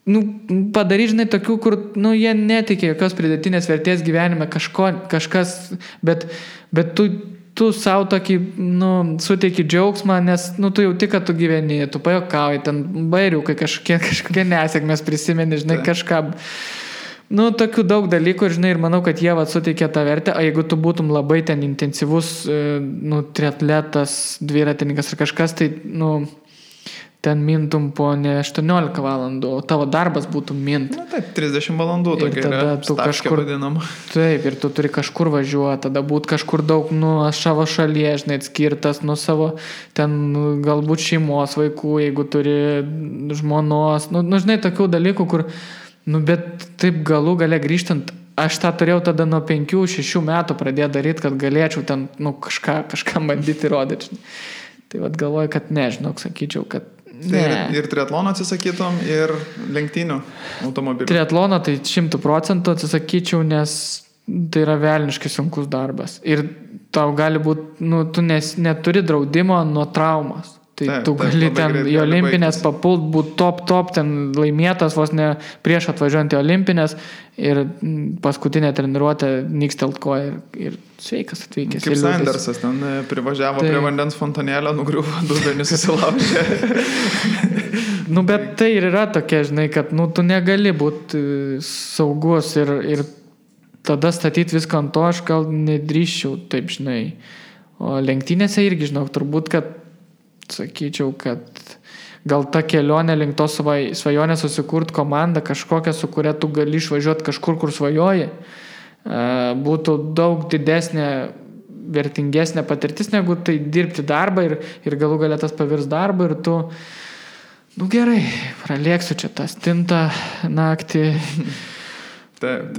Padaryti, žinai, tokių, kur, jie netikė jokios pridėtinės vertės gyvenime, kažkas, bet tu savo tokį, suteiki džiaugsmą, nes, tu jauti, kad tu gyveni, tu pajokauji, ten bairiukai kažkokie nesėkmės prisimeni, žinai, kažką. Tokių daug dalykų, žinai, ir manau, kad jie suteikė tą vertę, o jeigu tu būtum labai ten intensyvus, triatletas, dviratininkas ar kažkas, tai, ten mintum po ne 18 valandų, o tavo darbas būtų mint. Taip, 30 valandų tokia yra stavkė vadinama. Taip, ir tu turi kažkur važiuoti, tada būt kažkur daug, savo šalyje, žinai, atskirtas, savo ten galbūt šeimos vaikų, jeigu turi žmonos, žinai, tokių dalykų, kur bet taip galų gale grįžtant, aš tą turėjau tada nuo 5-6 metų pradėti daryti, kad galėčiau ten, kažką bandyti rodyti. Tai galvoju, kad nežinok, sakyčiau, kad ne. Ir triatlono atsisakytum, ir lenktynių automobilių. Triatlono tai 100% atsisakyčiau, nes tai yra velniškai sunkus darbas. Ir tau gali būti, tu neturi draudimo nuo traumos. Tai tu gali ten į olimpinės papult, būti top, ten laimėtas vos ne prieš atvažiuojant į olimpinės ir paskutinę treniruotę nykstelt koją ir sveikas atvykęs. Kaip Sandersas ten privažiavo prie vandens fontanėlio, nugriuvo, dubenį susilaužė. Bet tai ir yra tokia, žinai, kad tu negali būti saugus ir tada statyti viską ant to, aš gal nedrįščiau, taip, žinai. O lenktynėse irgi, žinau, turbūt, kad sakyčiau, kad gal ta kelionė link to svajonę susikurt komandą kažkokią, su kuria tu gali išvažiuoti kažkur, kur svajoji, būtų daug didesnė, vertingesnė patirtis, negu tai dirbti darbą ir galų galia tas pavirs darbą ir tu, gerai, pralėksiu čia tą stintą naktį. Taip.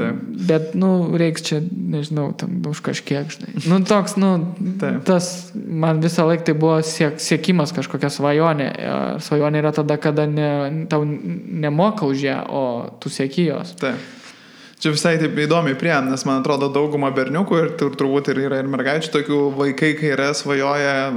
Bet, reiks čia, nežinau, tam už kažkiek, žinai. Toks, tas, man visą laiką tai buvo siekimas kažkokia svajonė. Svajonė yra tada, kada tau nemoka už ją, o tu sieki jos. Taip. Čia visai taip įdomiai priėm, nes man atrodo dauguma berniukų ir turbūt yra ir mergaičių tokių vaikai, kai yra svajoja,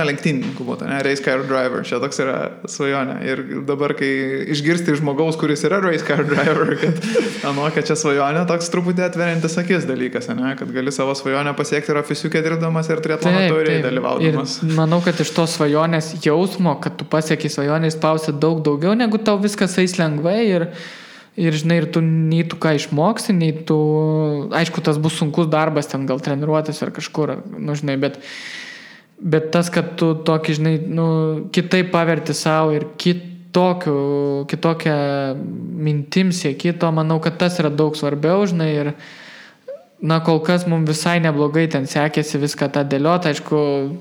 lenktynininkų būtų, race car driver, čia toks yra svajonė. Ir dabar, kai išgirsti žmogaus, kuris yra race car driver, kad čia svajonė, toks truputį atveriantis akis dalykas, kad gali savo svajonę pasiekti ir ofisiukė dirbdamas ir triatlono taurėje dalyvaudamas. Ir manau, kad iš tos svajonės jausmo, kad tu pasieki svajonę, įspausi daug daugiau, negu tau viskas eis lengvai ir žinai, ir tu nei tu ką išmoksi, nei tu, aišku, tas bus sunkus darbas, ten gal treniruotis ar kažkur, žinai, bet tas, kad tu tokį, žinai, kitaip paverti savo ir kitokią mintim sieki, to manau, kad tas yra daug svarbiau, žinai, ir kol kas mums visai neblogai ten sekėsi viską tą dėlioti, aišku,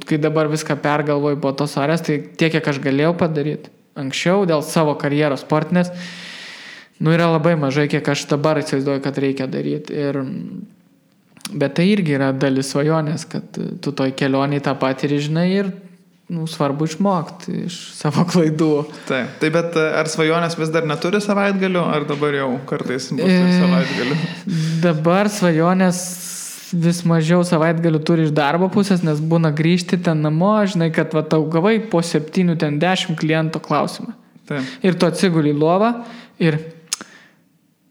kai dabar viską pergalvoju po tos arės, tai tiek, kiek aš galėjau padaryti anksčiau dėl savo karjeros sportinės, yra labai mažai, kiek aš dabar įsivaizduoju, kad reikia daryti. Bet tai irgi yra dalis svajonės, kad tu toj kelionėj tą patį žinai ir svarbu išmokti iš savo klaidų. Taip, bet ar svajonės vis dar neturi savaitgalių, ar dabar jau kartais bus savaitgalių? Dabar svajonės vis mažiau savaitgalių turi iš darbo pusės, nes būna grįžti ten namo, žinai, kad tau gavai po 7-10 kliento klausimą. Taip. Ir tu atsiguli į lovą ir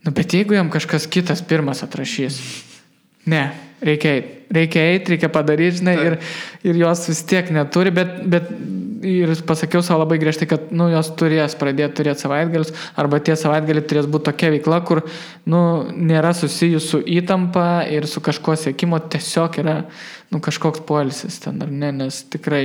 bet jeigu jam kažkas kitas pirmas atrašys, reikia eiti, reikia padaryti, žinai, ir jos vis tiek neturi, bet ir pasakiau savo labai griežtai, kad, jos turės turėti savaitgalius, arba tie savaitgaliai turės būti tokia veikla, kur, nėra susijus su įtampa ir su kažko siekimo, tiesiog yra, kažkoks poilsis ten, ar ne, nes tikrai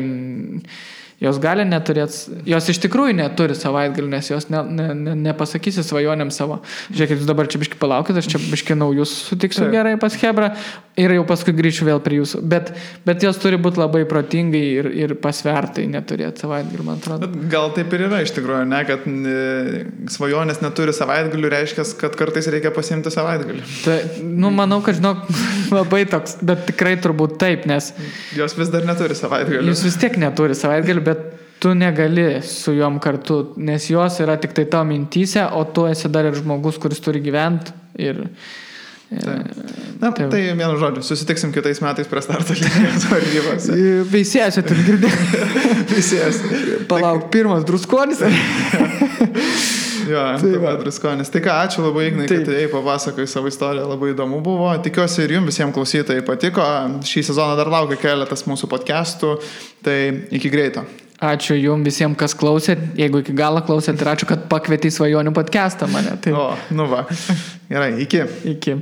jos gali neturėti, jos iš tikrųjų neturi savaitgalių, nes jos nepasakysi svajonėm savo. Žiūrėkit, jūs dabar čia biški palaukit, aš čia biški naujus sutiksiu gerai pas Hebrą ir jau paskui grįšiu vėl prie jūsų. Bet jos turi būti labai protingai ir pasvertai neturėti savaitgalių, man atrodo. Bet gal taip ir yra iš tikrųjų, ne, kad svajonės neturi savaitgalių, reiškia, kad kartais reikia pasiimti savaitgalį. Tai, manau, kad žinok, labai toks, bet tikrai turbūt taip, nes jos vis dar neturi savaitgalių. Jūs vis tiek neturi savaitgalių, bet tu negali su juom kartu, nes jos yra tik tai tavo mintyse, o tu esi dar ir žmogus, kuris turi gyventi ir... Tai vienu žodžiu, susitiksim kitais metais prie starto linijos varžybos. Veisėsi, tu girdėjai. Veisėsi. Palauk, pirmas druskonis. Jo, druskonis. Tai ką, ačiū labai, Ignai, kad tai papasakai savo istoriją, labai įdomu buvo. Tikiuosi ir jums visiems klausytojai patiko. Šį sezoną dar laukia keletas mūsų podcastų, tai iki greito. Ačiū jums visiems, kas klausėt. Jeigu iki galo klausėt, ir ačiū, kad pakvietei Svajonių podcastą mane. Tai... Va. Gerai, iki. Iki.